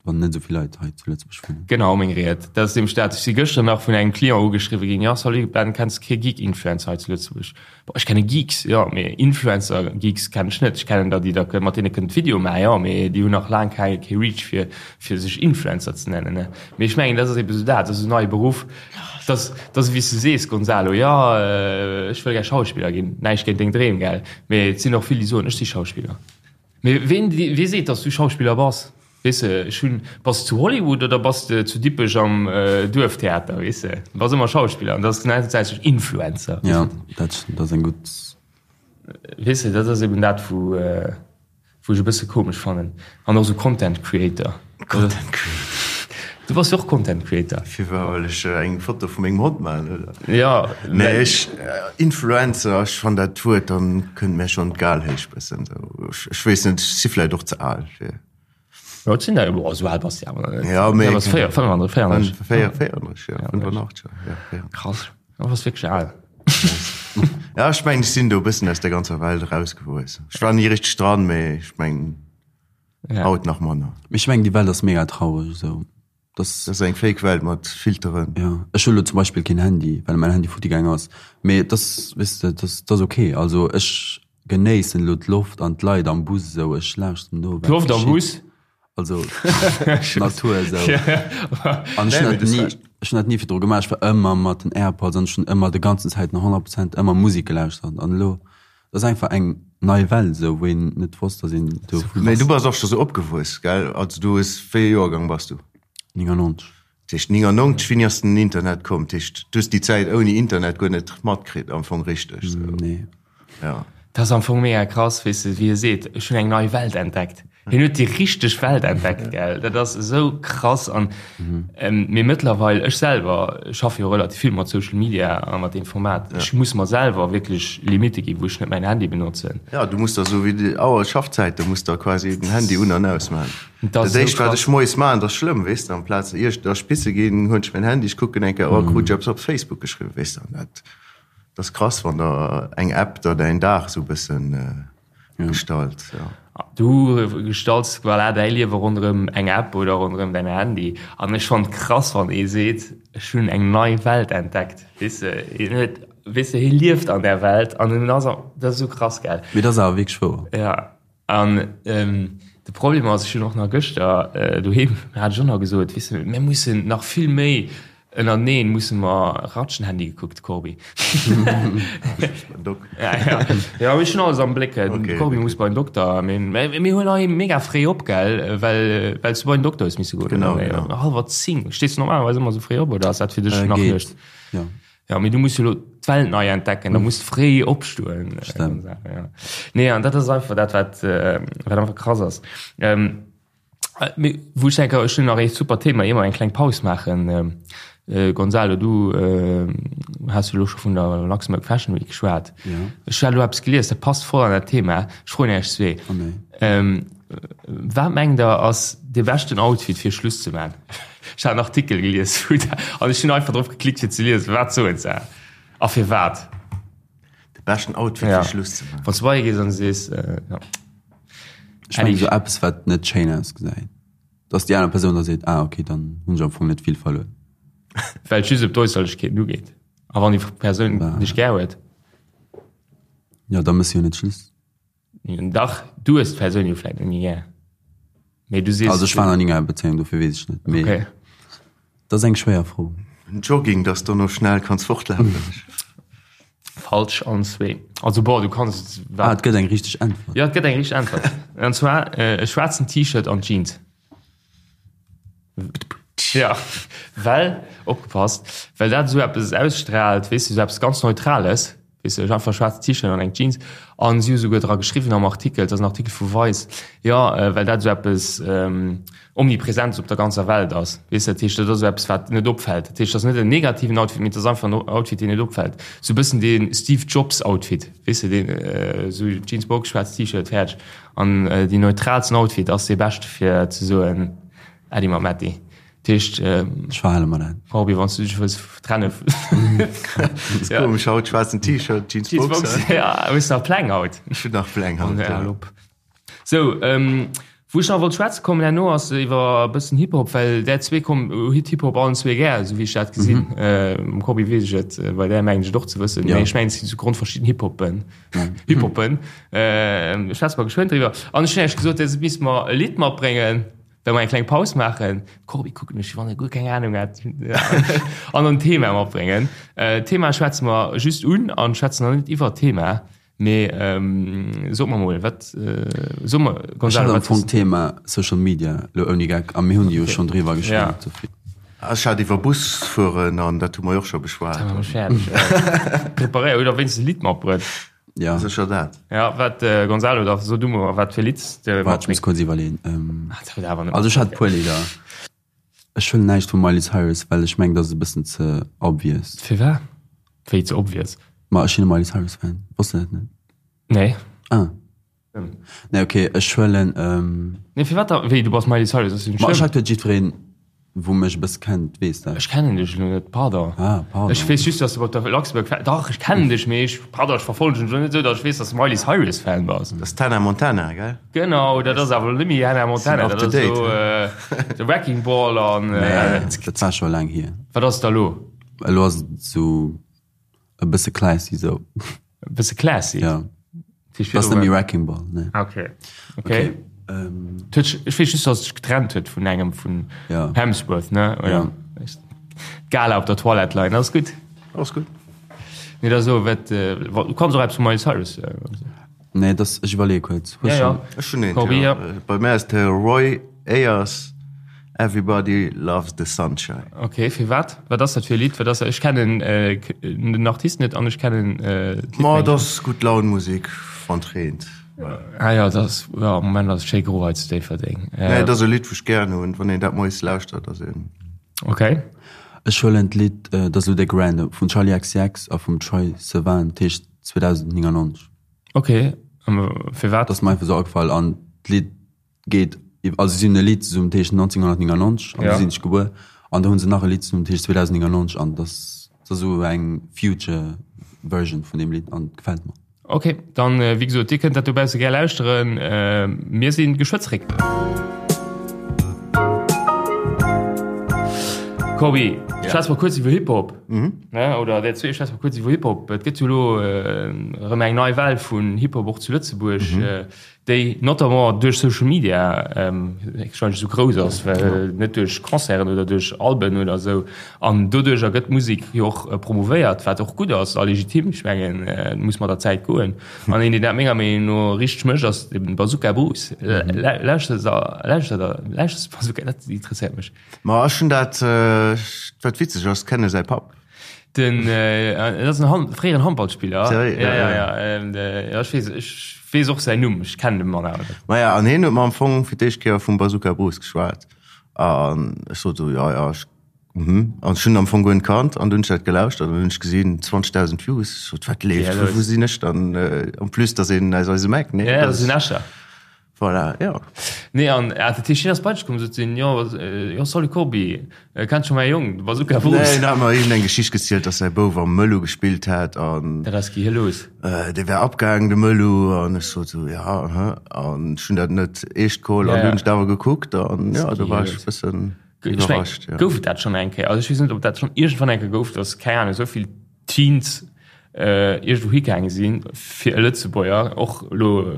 wann net esou vill Leit hei zu Lëtzebuerg wunnen. Genau, meng Ried. Dat ass nämlech dat. Ech si gëschter nach vun engem Client ugeschriwwe ginn, Jo, salut Ben, kenns de kee Geek-Influencer hei zu Lëtzebuerg? Boah, ech kenne Geeks, jo, mee Influencer-Geeks kennen ech net. Ech kennen der, déi da mat deene kënnt Video maachen, jo, mee déi hunn nach laang kei kee Reach fir fir sech Influencer ze nennen, ne. Mee ech mengen, dat ass ebe sou dat, dat ass esou en neie Beruff. Dat ass, dat ass wéi s du sees, Gonzalo, jo, ech wëll gär Schauspiller ginn. Näischt géint deng Dreem, gell, mee et sinn och vill, déi soen, ech si Schauspiller. Mee ween, wee seet, datt s du Schauspiller bass? Weess de, ech hunn, bass de zu Hollywood oder bass de zu Dippech am Duerftheater, weess de? Du bass ëmmer Schauspiller an dat ass gläichzäiteg Influencer. Jo, dat ass eng gutt. Weess de, dat ass eben dat, wou, wou ech e bësse komesch fannen. An och esou Content Creator. Content Creator. Du bass jo och Content Creator. Firwat, well ech eng Foto vu mengem Hond maachen, oder? Jo. Nee, ech, Influencer, ech fann dat Wuert, dann kënnt mär schonn d'Gal héich bëssen esou. Ech weess net, ech si vläicht och ze al fir. Jo, et sinn der, boah, esou al bass de awer nach net. Jo, mee. Du bass 34, 34. 34, jo, 85, jo, 84. Krass, du bass wierklech al. Ja, ech mengen, ech sinn do e bëssen aus der ganzer Welt erausgewuess. Ech war ni richteg dran, mee ech mengen, haut nach manner. Mee ech mengen, déi Welt ass mega traureg esou. Das ass eng Fake Welt mat Filteren. Jo, ech hu lo zum Beispill keen Handy, well mäin Handy futti gaang ass. Mee et ass, weess de, et ass, et ass ok. Also ech genéissen elo d'Loft an d'Leit am Bus esou. Ech lauschteren no, wat D'Loft am geschitt. Bus? Also d'Natur esou. An ech hunn dat ni, ech hunn dat ni virdru gemaach. Ech war ëmmer mat den Airpods an ech hunn ëmmer de ganzen Zäiten 100 Prozent ëmmer Musek gelauschtert. An elo, et ass einfach eng nei Welt esou, wou een net wosst, datt een do vu Mee du bass och scho sou opgewuess, gell? Also du hues, wéi ee Joergang bass du? 99. Dat heescht 99, wéini ass den Internet komm? Dat heescht, du hues déi Zäit ouni Internet guer net matkritt am Fong richteg sou? Nee. Ja. Dat ass am Fong mega krass, weess de, wéi e seet, ech hunn eng nei Welt entdeckt. Hien huet déi richteg Welt entdeckt, gell? Dat ass esou krass an mee mëttlerweil, ech selwer schaffe jo relativ vill mat Social Media a mat deem Format, ech muss mer selwer wierklech Limitte ginn, wou ech net mäin Handy benotzen. Ja, du muss der esou wéi déi Auer Schaffzäit, do muss der quasi den Handy un an aus maachen. Dat Dat éischt wat ech moies maachen, dat ass schlëmm, weess de, amplaz ier ech da spisse ginn, huelen ech mäin Handy, ech kucken eng Kéier, oh krut ech eppes op Facebook geschriwwen, weess de, an dat ass krass, wann der eng App der däin Dag esou e bëssen. Gestalt, ja. Du gestalts voilà däi Liewe ronderëm eng App oder ronderëm däin Handy. An ech fannen et krass, wann ee seet, ech hunn eng nei Welt entdeckt. Weess de, hien huet, weess de, hie lieft an där Welt an en ass, dat ass esou krass, gell? Mee dat ass awer wierklech wouer. Ja, an de Problem ass, ech hunn och nach gëschter doheem, hat ech och nach gesot, weess de, mir mussen nach vill méi Ënnerteneen musse mer ratschen. Handy gekuckt, Corbi. Ja, ja. Ja, ech hunn alles am Bléck. Okay, Corbi muss bei den Dokter. Mir, mir huelen hei mega fréi op, gell? Well, well s du bei den Dokter hues misse goen. Genau, genau. Hallwer 10. Stees du normalerweis ëmmer sou fréi op oder ass dat fir dech nach Geet. Nuecht? Ja. Ja, mee du muss jo lo d'Welt nei entdecken, da muss du fréi opstoen. Stemmt. Ja. Nee, an dat ass einfach dat, wat, wat einfach krass ass. Ähm, Mee wou ech denken, ech hunn nach ee super Thema, ier mer eng kleng Paus maachen. Gonzalo, du has jo elo scho vun der Luxembourg Fashion Week geschwat. Ech hat elo eppes gelies, dat passt voll an dat Thema. Ech froen Iech zwee, Wat mengt Der ass dee beschten Outfit fir Schluss ze maachen? Ech hat en Artikel gelies wou dat, an ech hunn einfach drop geklickt fir ze liesen, wat soen se a firwat. De beschten Outfit fir Schluss ze maachen? Wann s du bei hie gees an sees, jo. Ech mengen esou eppes wat net schéin ausgesäit, dass déi aner Persoun da seet, ah okay, dann hunn ech am Fong net vill verluer. Well et just ëm d'Äusserlechkeeten ugeet. A wann déi Persoun dech gär huet? Jo, da mëss jo net Schluss. Dach, du hues d'Persoun jo vläit net méi gär. Mee du sees. Also ech war nach ni an enger Bezéiung, dofir weess ech net. Mee okay. dat ass eng schwéier Fro. En Jogging, dass du no schnell kanns fortlafen. Falsch allen zwee. Also bon, du kanns. Ah, et gëtt eng richteg Äntwert. Ja, et gëtt eng richteg Äntwert. An zwar äh, e schwaarzen T-Shirt an Jeans. Ja, well, opgepasst, well dat esou eppes ausstrahlt, weess du, esou eppes ganz Neutrales. Weess de, einfach schwaarzt T-Shirt an eng Jeans. An si hu souguer dra geschriwwen am Artikel, et ass en Artikel vu Vice, jo, well dat esou eppes Omnipresentes op der ganzer Welt ass. Weess de, dat heescht, dat ass esou eppes, wat net opfält. Dat heescht, dat ass net en negativen Outfit, mee et ass einfach en Outfit, deen net opfält. Esou e bëssen dee Steve Jobs Outfit, weess de, deen esou Jeans Box, schwaarzt T-Shirt, fäerdeg. An deen neutraalsten Outfit ass dee beschte fir ze soen, Äddi mam Äddi. Dat heescht, Ech verhale mer dat. Corbi, wann s du dech wëlls trenne. Ja. Komesch haut, schwaarzen T-Shirt, Jeans Jeans Boxer. Boxer, ja, hues nach Pläng haut? Ech hunn nach Pläng haut, ja. ja. Op. Sou, ähm, wou ech nach wollt schwätze kommen herno ass iwwer e bëssen Hip-Hop, well där zwee komm, hutt Hip-Hop allen zwee gär, esou wéi ech dat gesinn. Mhm. Äh, mam Corbi weess ech et, bei där mengen ech et och ze wëssen, Ja. mee ech mengen, et sinn zu Grond verschidden Hip-Hoppen. Hip-Hoppen. Äh, schwätze mer geschwënn driwwer. An ech hunn iech gesot, dir misst mer e Lidd matbréngen. Well mer eng kleng Paus maachen. Corbi kuckt mech, wéi wann e guer keng Ahnung hätt. An en Thema matbréngen. D'Thema schwätze mer just un an schwätzen nach net iwwer d'Thema. Mee sot mer mol, wat, so mer, Gonzalo, wat. Ech hat am Fong d'Thema Social Media elo ouni Geck a mir hunn jo schonn driwwer geschwat. Ech hat iwwer Bus fueren an dat hu mer jo och scho beschwat. Preparéiert, huet der wéinstens e Lidd matbruet? Ja. Sécher dat. Ja, wat äh, Gonzalo, da so du mol, wat fir Lidd de Wart, ech muss kurz iwwerleen. Ähm, Ah, dat huet awer net. also ech hat puer Lidder. Ech huelen näischt vum Miley Cyrus, well ech mengen, dat ass e bëssen ze obvious. Firwat? Wéi ze obvious? Ma ech sinn e Miley Cyrus Fan. Wosst de dat net? Nee. Ah. Nee, okay, ech huelen. Ähm, Nee, firwat da? Wéi, du bass Miley Cyrus, ass jo net ma ech schlëmm. hat huet jiddwereen Wou mech e bësse kennt, weess dat. Ech kennen dech elo net, pardon. Ah, pardon. Ech weess just, dass du op der Luxembourg Fa-, dach, ech kennen dech, mee ech, pardon, ech verfollegen dech elo net esou, dass ech weess, dass du Miley Cyrus Fan bass. Dat ass d'Hannah Montana, gell? Genau, dat ass awer elo net méi Hannah Montana, Sinn dat up to ass date, elo The Wrecking Ball an. Nee, dat war scho laang hier. Wat ass da elo? Elo ass et esou e bësse classy esou. E bësse classy? Ja. Dat ass net méi Wrecking Ball, nee. Ah, okay. Okay. Ähm, ech weess just, dass sech getrennt huet vun engem vun ja. Hemsworth, ne? Oder? Ja. Gala op der Toilette leien, ass gutt. Ass gutt. Nee, da so, wat, äh, du kanns och eppes vu Miley Cyrus. Äh, nee, das, ech iwwerleeë kuerz. Ja, ja. Ech hunn eent, Corby, ja. ja. Bei mär ass de Roy Ayers Everybody Loves the Sunshine. Ok, firwat? Wat ass dat fir e Lidd? Wat ass dat? Ech kennen den Artist net an ech kennen d'Lidd. Ma et ass gutt Laun Musek wann et reent. Ah jo, et ass, jo am Moment ass et schéi gro hei zu Déifferdeng. Nee, et ass e Lidd wou ech gären hunn, wann een dat moies lauschtert ass een. Ok. Ech huelen d'Lidd, dat ass elo déck random, vum Charli XCX a vum Troye Sivan, dat heescht 2099. Ok, firwat? Dat ass mer einfach esou agefall an d'Lidd geet also si hunn e Lidd zesummen dat heescht 1999 an du sinn ech gebuer an da hunn se nach e Lidd zesummen dat heescht 2099 an dat ass esou eng future version vun deem Lidd an gefält mer. Ok, dann wéi gesot, dir kënnt dat dobausse gär lauschteren. Mir si geschwë zréck. Corbi, schwätze mer kuerz iwwer Hip-Hop. Ne, oder der zwee schwätze mer kuerz iwwer Hip-Hop. Et gëtt jo elo erëm eng nei Well vun Hip-Hop och zu Lëtzebuerg. Déi notamment duerch Social Media wahrscheinlech esou grouss ass, well net duerch Concerten oder duerch Alben oder esou. An doduercher gëtt d'Musek jo och promouvéiert, wat och gutt ass a legitim. Ech mengen, et muss mat der Zäit goen. An een, deen dat menger Meenung no richteg mécht, ass de Bazooka Bruce. Lauschters de Bazooka? Dat interesséiert mech. Ma ech hunn dat, wat witzeg ass, kenne säi Papp. Den dat ass en Han fréieren Handballspiller. Sérieux? Ja, ja, ja. Ähm, ja, ech weess, ech weess och säin Numm, ech kennen de Mann awer net. Maja, an hien huet mer am Fong fir d'éischt Kéier vum Bazooka Bruce geschwat. An ech sot esou, ja, ja, ech, mhm. An ech hunn am Fong guer net kannt an dunn hunn ech dat gelauschtert an dunn hunn ech gesinn, 20.000 Views. Ech sot, wat leeft, wou, wou sinn ech dann? En plus, dass een aus eisem Eck, nee? Ja, dat ass en Escher. Voilà, jo. Nee, an ah, dat heescht, hien ass bei dech komm, sot hien, jo, jo, salut Corbi, kenns scho mäi Jong, de Bazooka Bruce? Nee, en hat mer iergendeng Geschicht gezielt, dass säi Bouf am Mëllu gespillt hätt an. Dat ass gi los. Dee wär abgaangen, de Mëllu, an ech sot esou, ja, aha, an ech hunn dat net eescht geholl an du hunn ech dat awer gekuckt an jo, do war ech e bëssen iwwerrascht, jo. Gouf et dat schonn eng Kéier? Also ech weess net, ob dat schonn iergendwann eng Kéier gouf, dass, keng Ahnung, esou vill Teens iergendwou higaange sinn, fir e Lëtzebuerger, och elo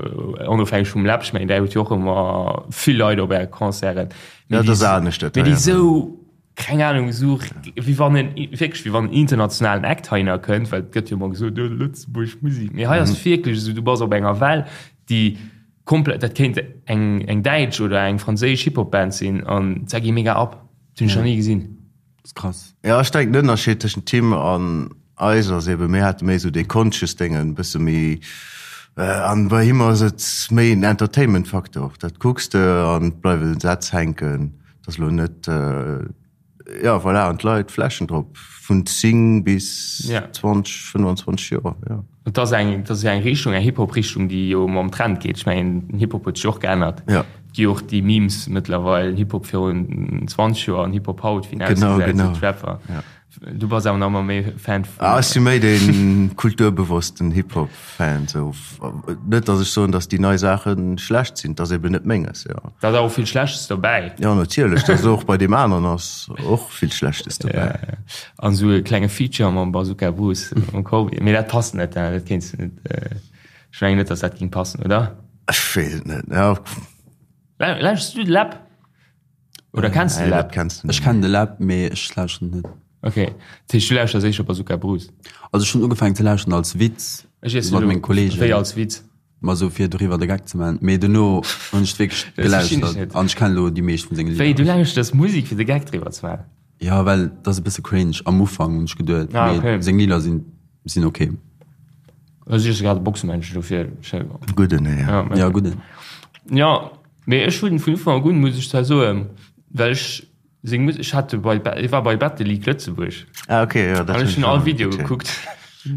onofhängeg vum Läb, ech mengen där hutt jo och ëmmer vill Leit op äre Concerten, mee déi, mee déi esou, keng Ahnung, esou wéi wann en, wierklech wéi wann en internationalen Act heihinner kënnt, well et gëtt jo ëmmer gesot, oh Lëtzebuerg Musek, mee hei ass wierklech esou, du bass op enger Well, déi komplett, dat kéint eng, eng däitsch oder eng franséisch Hip-Hop-Band sinn an se gi mega ab, dat hunn ech nach ni gesinn. Das ist krass. Ja, ech denken den Ënnerscheed tëschent him an eis ass eben, mir hate méi esou dee conscious Déngen, e bësse méi, an bei him ass et méi en Entertainment Faktor. Dat kucks de an et bleiwen Sätz hänken, et ass elo net, ja voilà, an d'Leit flashen drop vun 10 bis 20, 25 Joer, jo. Et ass eng, et ass jo eng Richtung, eng Hip-Hop-Richtung, déi jo mam Trend geet. Ech mengen, den Hip-Hop huet sech och geännert. Ja. Et gi jo och déi Memes mëttlerweil, Hip-Hop virun 20 Joer an Hip-Hop haut, wéi en Genau, ausgesäit, genau. esou d'Rapper. Ja. Du bass awer nach ëmmer méi Fan vun. Ah, ech si méi dee kulturbewossten Hip-Hop-Fan, esou. Net, datt ech soen, datt déi nei Saache schlecht sinn, et ass eben net menges, jo. Da ass awer och vill Schlechtes dobäi. Jo, natierlech, dat ass och bei deem aneren ass och vill Schlechtes dobäi. Ja, ja. An esou e klenge Feature mam Bazooka Bruce mam Corbi. Mee dat passt net, hein? Dat kéints du net. Ech mengen net, datt dat géing passen, oder? Ech weess et net, ja. Lauschters du de Läb? Oder kenns du de Läb? Kenns du net. Ech kennen de Läb, mee ech lauschteren net. Okay, dat heescht du lauschters éischter Bazooka Bruce? Also ech hunn ugefaangen ze lauschteren als Witz mat menge Kollegen. Wéi als Witz? Ma sou fir doriwwer de Geck ze man. Mee dono hunn ech wierklech gelauschtert an ech kennen elo déi meescht vun senge Lidder. Wéi, du lauschters Musek fir de Geck driwwer ze man? Jo, well et ass e bësse cringe am Ufank hunn ech geduet, mee seng Lidder sinn sinn ok. Ech si grad e Boxemännchen, dofir. Gudden, ja. Ja, gudden. Jo, mee ech hunn vun Ufank un, muss ech zwar soen, well ech Seng Musek, ech hat bei, ech war bei Battle League Lëtzebuerg. Ah okay, ja, dat hun ech all Video gekuckt.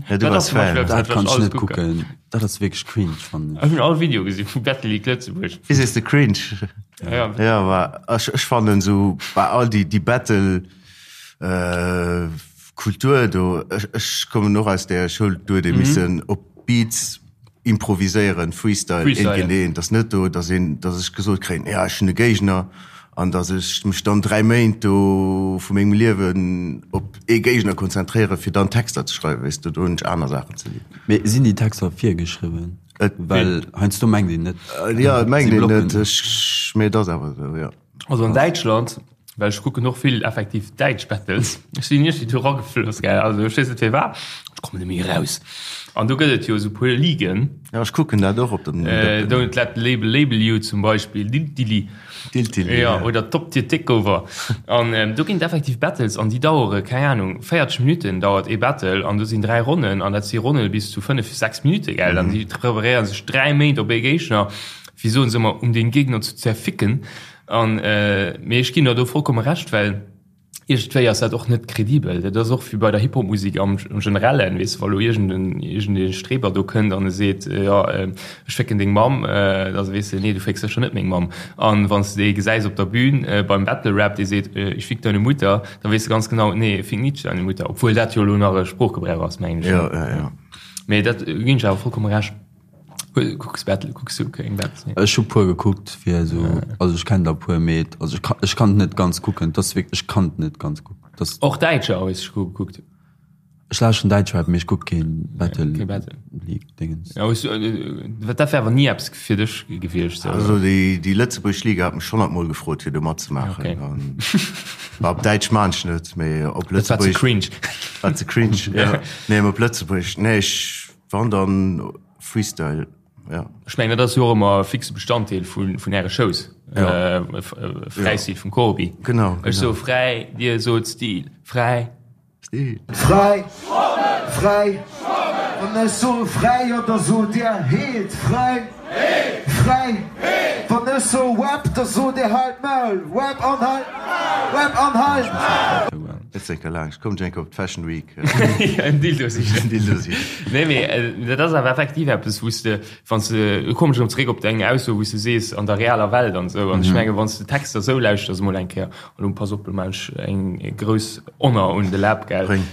Ja, du warst Fan. Dat kann ech net kucken. Dat ass wierklech cringe, fannen ech. Ech hun all Video gesi vu Battle League Lëtzebuerg. Wéi sees de cringe? Ja, ja ma ech, ech fannen sou bei all déi, déi Battle äh, Kultur do, ech, ech kommen och aus där Schoul, do huet ee missen op Beats improviséieren, Freestyle, Freestyle. eent géint eent. Ass net do, dass een, dass ech gesot kréien, ja ech hunn e Géigner an dass ech mech dann 3 Méint do vu mengem Liewen op ee Géigner konzentréieren, fir dann Texter ze schreiwen, weess de, do hunn ech aner Saachen ze dinn. Mee sinn déi Texter virgeschriwwen? Et. Well heiansdo mengt een net. Jo, et mengt een net, ech, mee et ass awer esou, jo. Also an Däitschland, well ech kucken och vill effektiv däitsch Battles, ech sinn iergendwéi do eragefloss, gell, also ech weess net firwat, ech kommen net méi eraus. An do gëtt et jo esou puer Ligen. Ja, ech kucken dat och op dem. Don't let the label label you zum Beispill, Diltili. Diltili, ja. Oder Top Tier Takeover. An do ginn et effektiv Battles an déi dauere, keng Ahnung, 40 Minutten dauert ee Battle an do sinn 3 Ronnen an dat si Ronne bis zu 5, 6 Minutte, gell. An déi preparéiere sech 3 Méint op ee Géigner. wéi soen se ëmmer, um den Gegner zu zerficken. An mee ech ginn der do vollkomme Recht, well iergendwéi ass dat och net kredibel. Dat ass och wéi bei der Hip-Hop-Musek am Generellen, weess de, wa lo iergend iergendee Streber do kënnt an e seet, jo ech fécken deng Mamm, da weess de, nee du fécks sécher net meng Mamm. An wann s de dee gesäis op der Bühn beim Battle Rap, dee seet, ich fick deine Mutter, da weess de ganz genau, nee fick nit deine Mutter, obwuel dat jo elo nach e Sproochgebrauch ass, mengen ech. Jo, jo, jo. Mee dat ginn ech awer vollkomme Recht. Kucks Battle, kucks du keng Battles? Nee. Ech hu puer gekuckt fir esou, also ech kennen der puer, mee also ech kann, ech kann et net ganz kucken, dat ass wierklech, ech kann et net ganz kucken. Dat Och Däitscher hues du gekuckt? Ech lauschteren Däitschrap, mee ech kuck keen Battle. Kee Battle. League Dingens. Ja, hues du, äh, dat wär awer ni eppes fir dech gewiescht sou. Also déi, déi lëtzebuergesch Liga hat mech schon mol gefrot fir do matzemaachen. Okay. An, ma op Däitsch maan ech net, mee op Dat war ze Lëtzebuergesch. cringe. War ze cringe, ja. Nee, mee op Lëtzebuergesch, nee, ech, wann dann Freestyle, ja. Ech mengen, dat ass jo och ëmmer e fixe Bestanddeel vun, vun Äre Shows. Ja. Äh, Fräistil vum Corbi. Genau, Ech genau. so fräi, Dir sot Stil. Fräi. Stil. Fräi, fräi, wann ech soe fräi, jo da sot Dir heet fräi, fräi, wann ech soe Web, da sot Dir halt d'Maul, Web an halt, Web an halt. Net zeker laang, ech kommen enke op d'Fashion Week. En Dildo sichen. En Dildo sichen. Nee, mee dat ass awer effektiv eppes, wou s de, wann s de, do kommen ech erëm zeréck op deng Ausso, wou s de sees, an der realer Welt an esou. An ech menge wann s de Texter esou lauschters emol eng Kéier, an elo pass op, elo maachen ech eng grouss Honor un de Läb, gell, Bréng.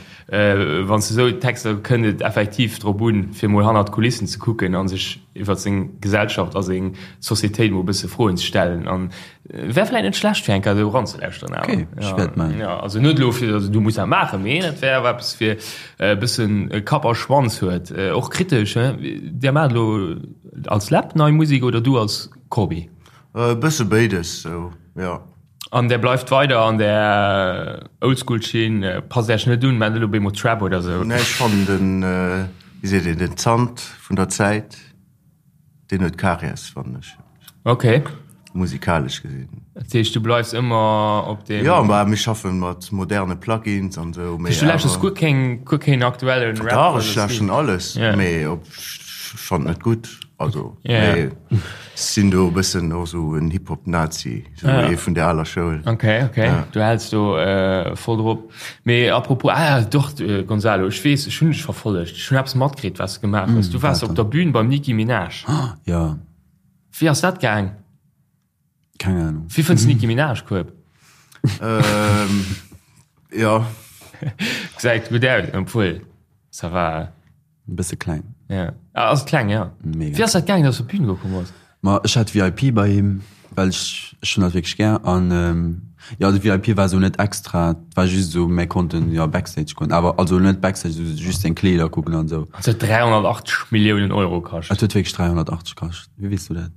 wann s de esou Texter, kënnt et effektiv drop un, fir emol hannert d'Kulissen ze kucken a sech iwwer seng Gesellschaft a seng Societéit emol e bësse Froen ze stellen. An Wär vläit net schlecht fir eng Kéier esou eranzelauschteren awer. Okay, ech wäert man. Ja, also net elo fir also du muss dat maachen, mee dat wär awer eppes fir e bëssen Kapp a Schwanz huet. Och kritesch, he? Dir maacht elo als Läb nei Musek oder du als Corbi? E bësse béides sou, jo. An där bleift weider an där Oldschool-Schinn, passt Äech net un, maacht elo op eemol Trap oder sou? Nee, ech fannen den, wéi seet een, den Zant vun der Zäit. Deen huet Karies, fannen ech. Ok. Musikalesch gesinn. Dat heescht, du bleifs ëmmer op deem. Jo, ma mir schaffen mat moderne Plugins an esou, mee. Du lauschters guer keng, guer keen aktuellen Rap? Dach, ech lauschteren alles, mee op, ech fannen et net gutt. Also, mee ech sinn do e bëssen och esou en Hip-Hop-Nazi, esou ee vun der aler Schoul. Ok, ok, du häls do voll drop. Mee apropos, ah doch Gonzalo, ech weess, ech hunn dech verfollegt, ech hunn eppes matkritt, wat s de gemaach hues. Du waars op der Bühn beim Nicki Minaj. Jo. Wéi ass dat gaang? Keng Ahnung. Wéi fënns de Nicki Minaj, Kueb? Jo. Gesäit gutt aus, obwuel, ça va. E bësse kleng. Ja. Ah, ass et kleng, ja. Mega. Wéi ass dat gaang, dass du op d'Bühn gekomm bass? Ma ech hat VIP bei him, well ech, ech hunn dat wierklech gär. An jo, de VIP war esou net extra, et war just esou, mir konnten jo Backstage goen, awer also net Backstage, esou just seng Kleeder kucken an esou. Et huet 380 Milliounen Euro kascht. Et huet wierklech 380 kascht. Wéi weess du dat?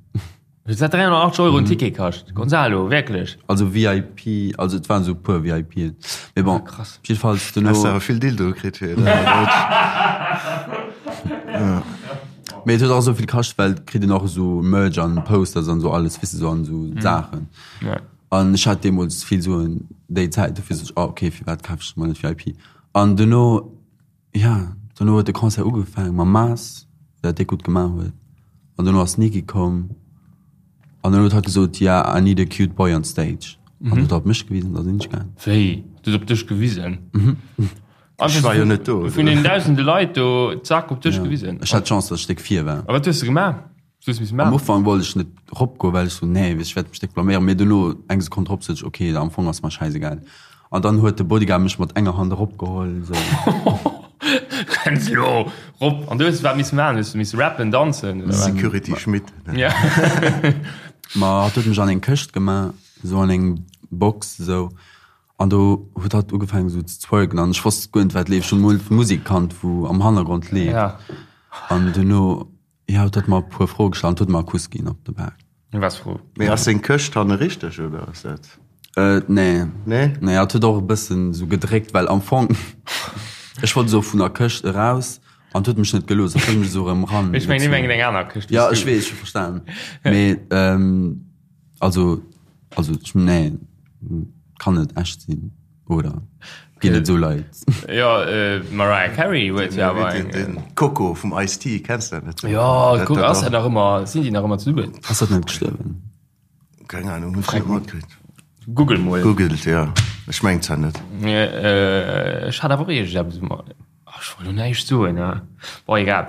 Huet dat 380 Euro en Ticket kascht? Gonzalo, wierklech? Also VIP, also et waren esou e puer VIPen. Mee bon, Ah, krass. jiddefalls duerno. Hast awer vill Dildoe kritt fir Mee et huet och esou vill kascht, well et kritt een och esou Merch an Posters an esou alles, weess de, esou an esou Saachen. Ja. An ech hat deemools vill Suen déi Zäit, dofir sot ech, oh okay, firwat kaf ech mer net VIP? An duerno Ja, dono huet de Concert ugefaangen mam Maas, dat déck gutt gemaach huet. An dono ass d'Niki komm an dann huet hatt gesot, ja, I need a cute boy on stage. An huet op mech gewisen, da sinn ech gaang. Wéi? Du hues op dech gewisen? Ech war jo net do. Vun den dausende Leit do, zack, op dech gewisen? Ech hat d'Chance, datt ech déck vir war. A wat hues de gemaach? Am Ufank wollt ech net ropgoen, well ech sou, nee, ech wäert mech déck blaméieren. Mee duerno, eng Sekonn drop, sot ech, ok, am Fong ass mer schäisegal. An dann huet de Bodyguard mech mat enger Hand eropgeholl, sou. Kënns elo rop. An du hues wat misse maachen? Hues du misse rappen, danzen oder wat? Security Schmitt. Ja. Ma hatt huet mech an eng Këscht gemaach, sou an eng Box, sou. An do huet hatt ugefaangen sou ze twerken an ech wosst guer net, wat leeft. Ech hunn emol d'Musek kannt, wou am Hannergrond leeft. An duerno. Jo, et huet mer e puer Froe gestallt an et huet mer e Kuss ginn op de Bak. Was Fro? Mee ass seng Këscht hanne richteg oder ass dat? Äh, nee. Nee? Nee, et huet och e bëssen esou gedréckt, well am Fong, ech wollt esou vun der Këscht eraus an et huet mech net gelooss, et huet mech esou erëm ran. Ech mengen, mir mengen eng aner Këscht. Ja, ech weess, ech hu verstan. Mee, ähm, also, also, ech, nee, kann net echt sinn. Oder ginn et esou Leit? Jo, d'Mariah Carey huet jo awer eng. Den Coco vum Ice-T, kenns de dat net? Jo, kuck, ass dat nach ëmmer, sinn déi nach ëmmer zesummen? Ass dat net gestuerwen? Keng Ahnung, hunn ech net matkritt. Google mol. Googelt, jo. Ech mengen zwar net. Ech hat awer och iergendeppes um. Ach, ech wollt lo näischt soen, ne? Bon, egal.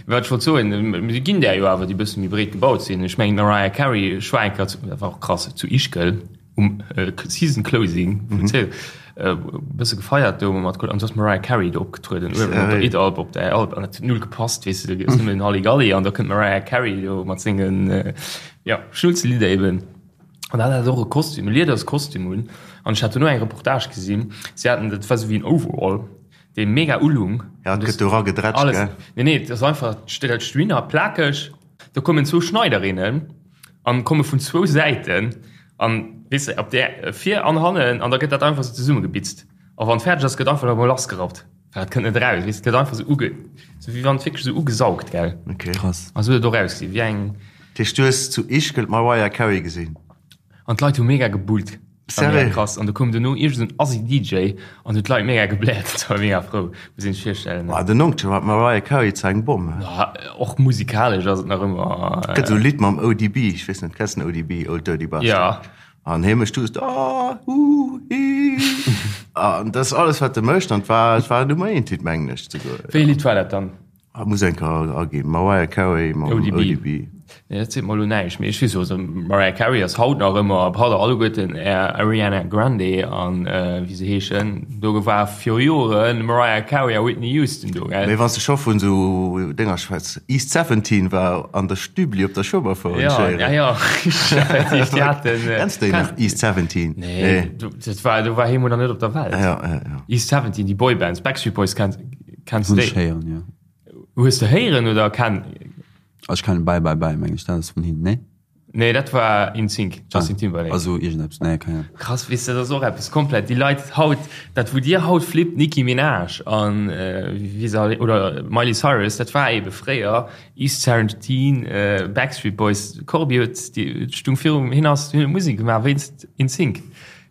Wat ech wollt soen, et ginn där jo awer, déi e bësse méi breet gebaut sinn. Ech mengen, d'Mariah Carey, ech war eng Kéier zu, dat war och krass, zu Ischgl. Um Season Closing vun Zéil e bësse gefeiert do mat An du ass Mariah Carey do opgetrueden uewen op der Idalp op der Alp an dat huet null gepasst weess de, do ass nëmmen Halligalli an da kënnt d'Mariah Carey do mat sengen jo Schnulzelidder eben. An dat hat och e Kostüm, e Liederskostüm un an ech hat dono eng Reportage gesinn, si haten, dat war sou wéi en Overall, dee mega ulung. Ja, et gëtt do eragedrätscht, gell? Nee, nee, et ass einfach, dat steet plakeg, do kommen zwou Schneiderinnen an komme vun zwou Säiten an weess de op där vir an hannen an da gëtt dat einfach sou zesummegebitzt a wann et fäerdeg ass gëtt einfach nach emol lassgerappt well dat kënnt net eraus weess de gëtt einfach sou uge sou wéi wann et wierklech sou ugesaugt gell. Okay. Krass. A sou huet et och ausgesinn wéi eng. Dat heescht du hues zu Ischgl d'Mariah Carey gesinn? An d'Leit hu mega gebullt. War mega Sérieux? krass. An do koum duerno iergend en Assi DJ an huet d'Leit mega gebläert. Dat war mega frou, muss een sech virstellen. Boah, den Onkel war d'Mariah Carey zwar eng Bomm, he? Ja, och musikalesch ass et nach ëmmer. Gëtt esou e Lidd mam ODB, ech weess net, kenns den ODB, Old Dirty Bastard? Ja. An hie mécht just ah, uh, hi. An dat ass alles, wat e mécht. An et war, et war Nummer eent Hit, mengen ech souguer. Wéi e Lidd war dat dann? Ah, muss eng Kéier aginn. Mariah Carey mam ODB. ODB. Nee, dat seet mer elo näischt, mee ech weess jo, also Mariah Carey ass haut nach ëmmer, braucht der alleguerten Är Ariana Grande an wéi se heeschen. Do war viru Joren Mariah Carey a Whitney Houston do, gell? Mee wann s de scho vun esou Dénger schwätz, East 17 war an der Stübli op der Schueberfouer Ja, entschéieren. ja, ja, effektiv, déi haten. Kenns de déi nach, East 17? Nee, do, dat war, do war hie mol nach net op der Welt. Ja, ja, ja. East 17, déi Boybands, Backstreet Boys kenns. Kenns du Hunn ech déi? héieren, jo. Hues de héieren oder ken? Ech kennen Bye Bye Bye, meng ech, dat ass vun hinnen, nee? Nee, dat war InSync, Justin Timberlake. Also iergendeppes, nee, keng Ahnung. Krass, weess de, dat ass och eppes komplett. Déi Leit haut, dat wou dir haut flippt, Nicki Minaj an wéi se all, oder Miley Cyrus, dat war ebe fréier East 17, Backstreet Boys. Corbi huet, déi stung virum, hien ass, hien huet Musek gemaach wéinst InSync.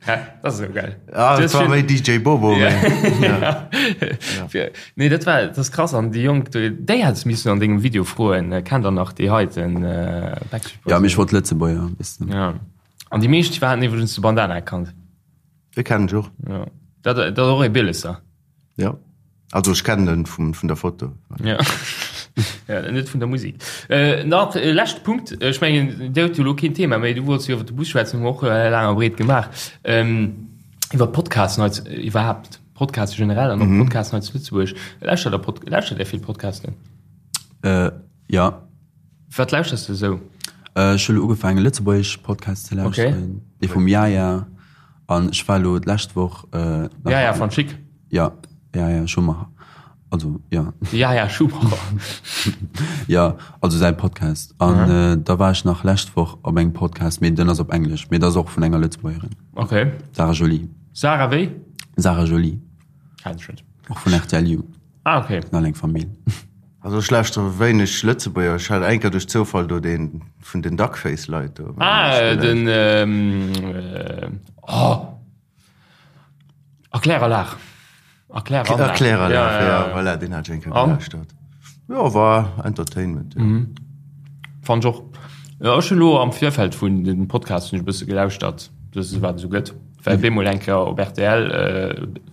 Ja, das ist so geil. Ah, das war méi DJ Bobo. Ja. Ja. Ja. Nee, dat war das krass an déi Jonk, déi hättest missen an dengem Video froen, äh, kennt der nach déi heiten äh, Backstreet Boys? Ja, mee ech wollt Lëtzebuerger, weess de. Ja. An déi meescht haten iwwregens de Bandana erkannt. Dee kennen ech och. Ja. Dat, dat ass och ee Bielesser. Ja. Also ech kennen en vum, vun der Foto. Ja. ja, net vun der Musik. Äh, nach äh, leschte Punkt. Ech mengen, Dir hutt jo elo keen Thema méi. Du wollts jo iwwer de Bus schwätzen, hu mer och äh, laang a breet gemaach. Ähm, iwwer Podcasten hei zu- iwwerhaapt. Podcaste generell an och mhm. Podcasten hei zu Lëtzebuerg. Lauschtert der Pod lauschtert der vill Podcasten? Äh, ja. Wat lauschterst du sou? Äh, ech hu lo ugefaangen lëtzebuergesch Podcasts ze lauschteren. Okay. Dee vum Yaya. An ech war lo d'lescht Woch äh, nach Yaya van Schick. Ja, ja, ja, Schumacher. Also, ja. Yaya Schumacher. Ja, also säi Podcast. An mhm. äh, da war ech nach lescht Woch op engem Podcast, mee den ass op Englesch, mee dat ass och vun enger Lëtzebuergerin. Okay. Sarah Jolie. Sarah wéi? Sarah Jolie. Kenn ech net. Och vun RTL You. Ah, okay. All eng Famill. Also ech lauschtere wéineg Lëtzebuerger. Ech hat eng Kéier duerch Zoufall do dee vun den Duckface-Leit do. Ah, den, ähm, oh! Erkläranlag. Erkläranlag. Erkläranlag, ja, ja, ja. Voilà, deen hat ech eng Kéier gelauschtert. Jo, war Entertainment, ja. Mhm. Fand ech och. Ja, ech hunn elo am Virfeld vun dem Podcast hunn ech e bësse gelauschtert, dat wat esou gëtt. Well bemol eng Kéier op rtl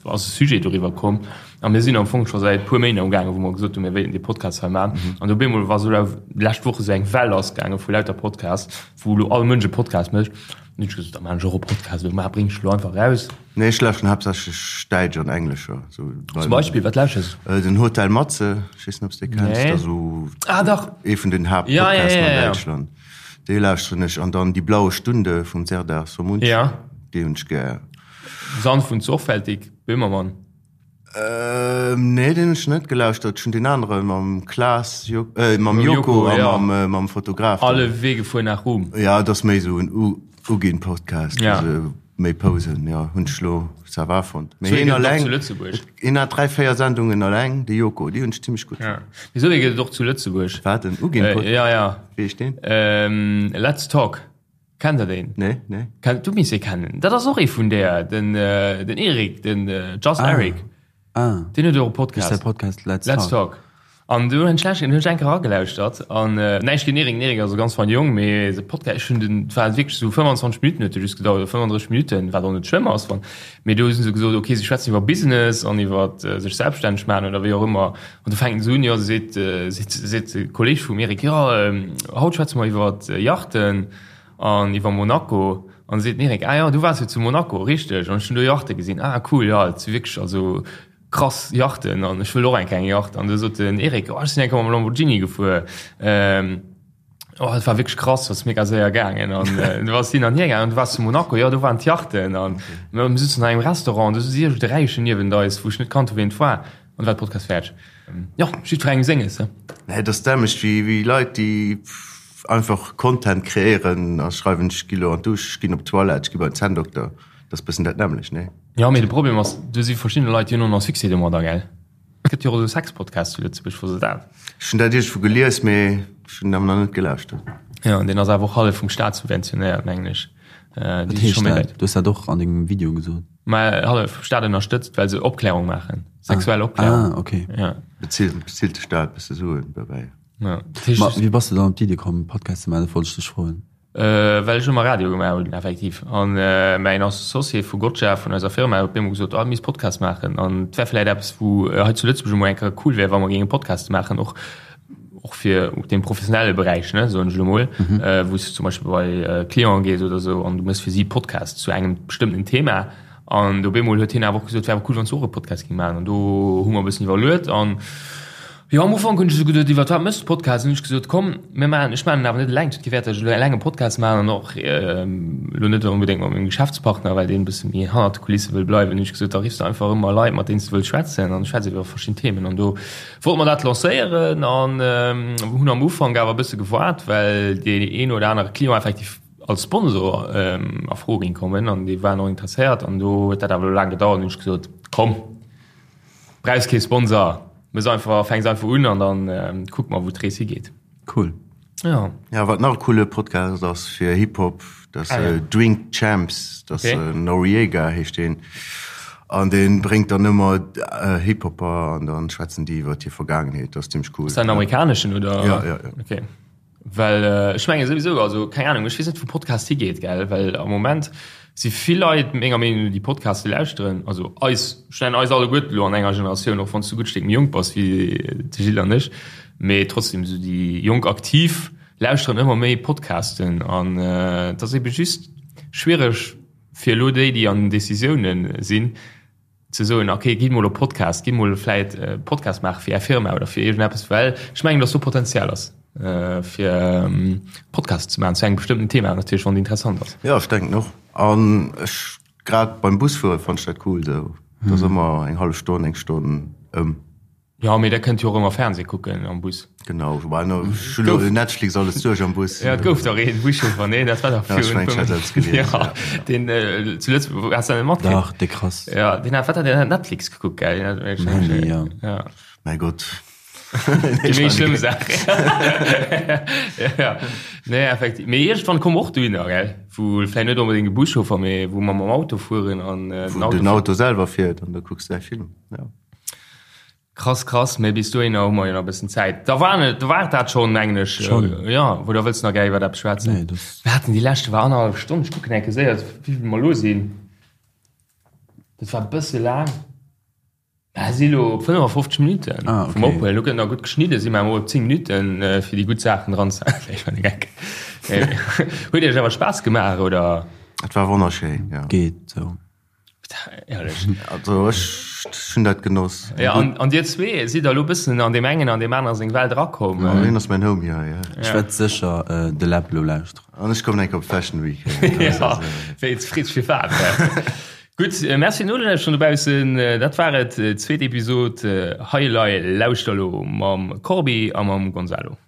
ass e Sujet doriwwer komm a mir sinn am Fong scho säit puer Méint amgaangen, wou mer gesot hunn, mir wéilten dee Podcast hei maachen. An op eemol war esou lescht Woch esou eng Well lassgaange vu lauter Podcasts, wou elo all Mënsch e Podcast mécht. An hunn ech gesot, da maachen ech och e Podcast, elo ma bréng ech elo einfach eraus. Nee, ech lauschteren haaptsächlech däitsch an englescher. Zum Beispill, wat lauschters du? Den Hotel Matze, ech weess net, ob s de dee kenns. Nee. Dat ass esou Ah, dach! ee vun den Haaptpodcasten an Däitschland. Déi lauschteren ech an dann Die blaue Stunde vum Serdar Somuncu. Ja. Déi hunn ech gär. Sanft und sorgfältig, Böhmermann. Ähm, nee, deen hunn ech net gelauschtert. Ech hunn deen anere mam Klaas, Jo, äh, mam Joko a ja. mam, äh, mam Fotograf. Alle Wege fuhren nach Ruhm. Ja, dat ass méi esou en U Ugin-Podcast. Ja. Also, méi Posen, ja, hunn ech lo ça va fonnt. Mee Sou ee hien gëtt et och alleng, zu Lëtzebuerg. hien hat 3, 4 Sendungen alleng, de Joko, déi hunn ech zimmlech gutt Ja. fonnt. Mee sou ee gëtt et och zu Lëtzebuerg. Wat, en Ugin-Podcast? Äh, ja, ja. Wéi heescht deen? Ähm, Let's Talk. Kennt der deen? Nee, nee. Kennt, du misst e kennen. Dat ass och ee vun där, den, äh, den Erik, den äh, Just Ah. Eric. Ah. Deen huet och e Podcast. Ist der Podcast Let's, Let's Talk. Talk. An du hunn ech hunn ech eng Kéier eragelauschtert an äh, näischt géint Erik, den Erik ass e ganz feine Jong, mee de Podcast, ech hunn den, et war wierklech esou 25 Minutten huet de just gedauert, oder 35 Minutten, wat och net schlëmm ass, wann, mee do hu se gesot, okay, si schwätzen iwwer Business an iwwer äh, sech selbststänneg maachen oder wéi och ëmmer. An du fänken se un, jo, seet, äh, seet, seet de Kolleeg vum Erik, jo, ähm, haut schwätze mer iwwer Yachten an iwwer Monaco. An seet den Eric, ah jo, du waars jo zu Monaco, richteg? An ech hunn do Yachte gesinn, ah cool, jo, et si wierklech also krass Yachten an ech wëll och eng kleng Yacht. An du sot den Eric, oh ech sinn eng Kéier mam Lamborghini gefuer, oh et war wierklech krass, ass mega séier gaangen. An du ass hin an hier gaangen an du waars zu Monaco, jo do waren d'Yachten. An mir sutzen an engem Restaurant, do si iergend e Räichen niewent eis, wou ech net kannt hu wien et war. An war de Podcast fäerdeg. Jo, jiddwerengem senges, he. Nee, et ass dämlech wéi wéi Leit déi einfach Content kreéieren a schreiwen ech gi lo an d'Dusch, ech ginn op d'Toilette, ech gi bei den Zänndokter. Dat ass bëssen dat nämmlecht, nee? Jo, mee de Problem ass, do si verschidde Leit, déi hunn och nach Succès domadder, gell? Et gëtt jo och esou Sex-Podcasts zu Lëtzebuerg, wosst der dat? Ech hunn dat iergendwou gelies, mee ech hunn awer nach net gelauschtert. Jo, an deen ass awer och hallef vum Staat subventionéiert, mengen ech. Wat heescht dat? Du hues dat och an dengem Video gesot. Mä hallef vum Staat ënnerstëtzt, well se Opklärung maachen, sexuell Opklärung. Ah, okay. Ja. Bezilt, bezilt de Staat e bësse Suen dobäi. Ja. Ma wéi bass de dann op d'Iddi komm, Podcast ze maachen? Dat wollt ech dech froen. Well ech ëmmer Radio gemaach hunn, effektiv. An mäin Associé vu Gotcha, vun eiser Firma, huet bemol gesot, oh, mir misst Podcast maachen. An et wär vläicht eppes, wou hei zu Lëtzebuerg emol eng Kéier cool wär, wa mer géinge Podcaste maachen, och och fir den professionelle Beräich, ne, soen ech elo mol, wou s du zum Beispill bei Clienten gees oder esou an du méchs fir si Podcast zu engem bestëmmten Thema. An op eemol huet hien awer och gesot, et wär awer cool, wann s du och e Podcast géing maachen. An do hu mer e bëssen iwwerluet an jo, am Ufank hunn ech esou geduet, iwwer wat méchs du Podcast? An hunn ech gesot, komm, mir maachen, ech maachen en awer net eleng, et huet kee Wäert, datt ech elo eleng e Podcast maachen an och elo net onbedéngt mat mengem Geschäftspartner, well deen e bësse méi hannert de Kulisse wëll bleiwen. Hunn ech gesot, da riffs de einfach ëmmer Leit, mat deenen s du wëlls schwätzen an schwätz iwwer verschidden Themen. An do Wollt mer dat lancéieren an hunn am Ufank awer e bësse gewaart, well deen een oder anere Client effektiv als Sponsor a Fro géing kommen an déi waren och interesséiert an do huet dat awer elo laang gedauert. Hunn ech gesot, komm, brauchs kee Sponsor, mëss einfach, fänks einfach un an dann kucke mer wou d'Rees higeet. Cool. Ja. Ja, wat nach e coole Podcast ass fir Hip-Hop, dat ass Drink Champs, dat ass Noriega heescht deen. An dee bréngt dann ëmmer Hip-Hopper an dann schwätzen déi iwwer hir Vergaangenheet. Dat ass zimmlech cool. Ass dat en amerikaneschen oder? Ja, ja, ja. Okay. Well ech menge souwisou, also keng Ahnung, ech weess net wou Podcast higeet, gell, well am Moment si vill Leit menger Meenung no déi Podcaste lauschteren, also eis, ech nennen eis alleguerten elo an enger Generatioun, och wann s du e gutt Stéck méi jonk bass wéi de Gilles an ech, mee trotzdem esou déi jonk Aktiv lauschteren ëmmer méi Podcasten an et ass ebe just schwiereg fir elo déi, déi an den Decisiounen sinn, ze soen, ok, gitt mol op Podcast, gitt mol vläit e Podcast maache fir Är Firma oder fir iergendeppes, well ech mengen, datt do Potenzial ass fir Podcasts ze maachen zu engem bestëmmten Thema natierlech, wann et interessant ass. Jo, ech denken och. An ech, grad beim Busfuere fannen ech dat cool esou, et ass ëmmer eng hallef Stonn, eng Stonn ëm. Jo, mee der kënnt jo och ëmmer Fernseh kucken am Bus. Genau, woubäi no, ech hunn elo Netflix alles duerch am Bus. Ja, et gouf dach een Buschauffer, nee, dat war dach Ja, ech mengen, ech hätt eppes gelies, Ja, deen zu Lëtzebuerg, has du dat net matkritt? Dach, dee krass. Ja, deen hat, wat hat deen hat Netflix gekuckt, gell? Deen hat, Mandy, ja. Ja. Mäi Gott. Déi méi schlëmm Saach. Ja, nee, effektiv. Mee iergendwann komme mer och dohinner, gell, wou vläicht net onbedéngt e Buschauffer, mee wou mer mam Auto fueren an den Auto. Wou den Auto selwer fiert an da kucks de däi Film, ja. Krass krass, mee bis dohinner hu mer jo nach e bëssen Zäit. Da war et, da war et dat schonn, mengen ech. Schonn. Jo, oder wëlls de nach gär iwwert eppes schwätzen? Nee, das. Mir haten déi leschte war annerhallef Stonn. Ech kucken eng Kéier séier, wéi vill mer elo sinn. Dat war e bësse laang. Mer si elo op 55 Minutten Ah, vum okay. Ophuelen. Elo gëtt nach gutt geschnidden, si mer emol op 10 Minutten, fir déi gutt Saachen dran ze. Nee, ech war de Geck. Huet Iech awer Spaass gemaach, oder? Et war wonnerschéin, jo. Geet sou. Ehrlech. Also ech hunn dat genoss. Ja, an, an dir zwee sidd elo bëssen an deem engen an deem anere seng Welt erakomm. Ja, hien ass mäin Homie hei, ja. Ech wäert sécher de Läb elo lauschteren. An ech kommen eng Kéier op d'Fashion Week. Ja, wéi freet sech fir wat. Gutt, Merci fir d'Nolauschteren dobaussen. Dat war et, zweet Episod Hei Elei, lauschter elo mam Corbi a mam Gonzalo.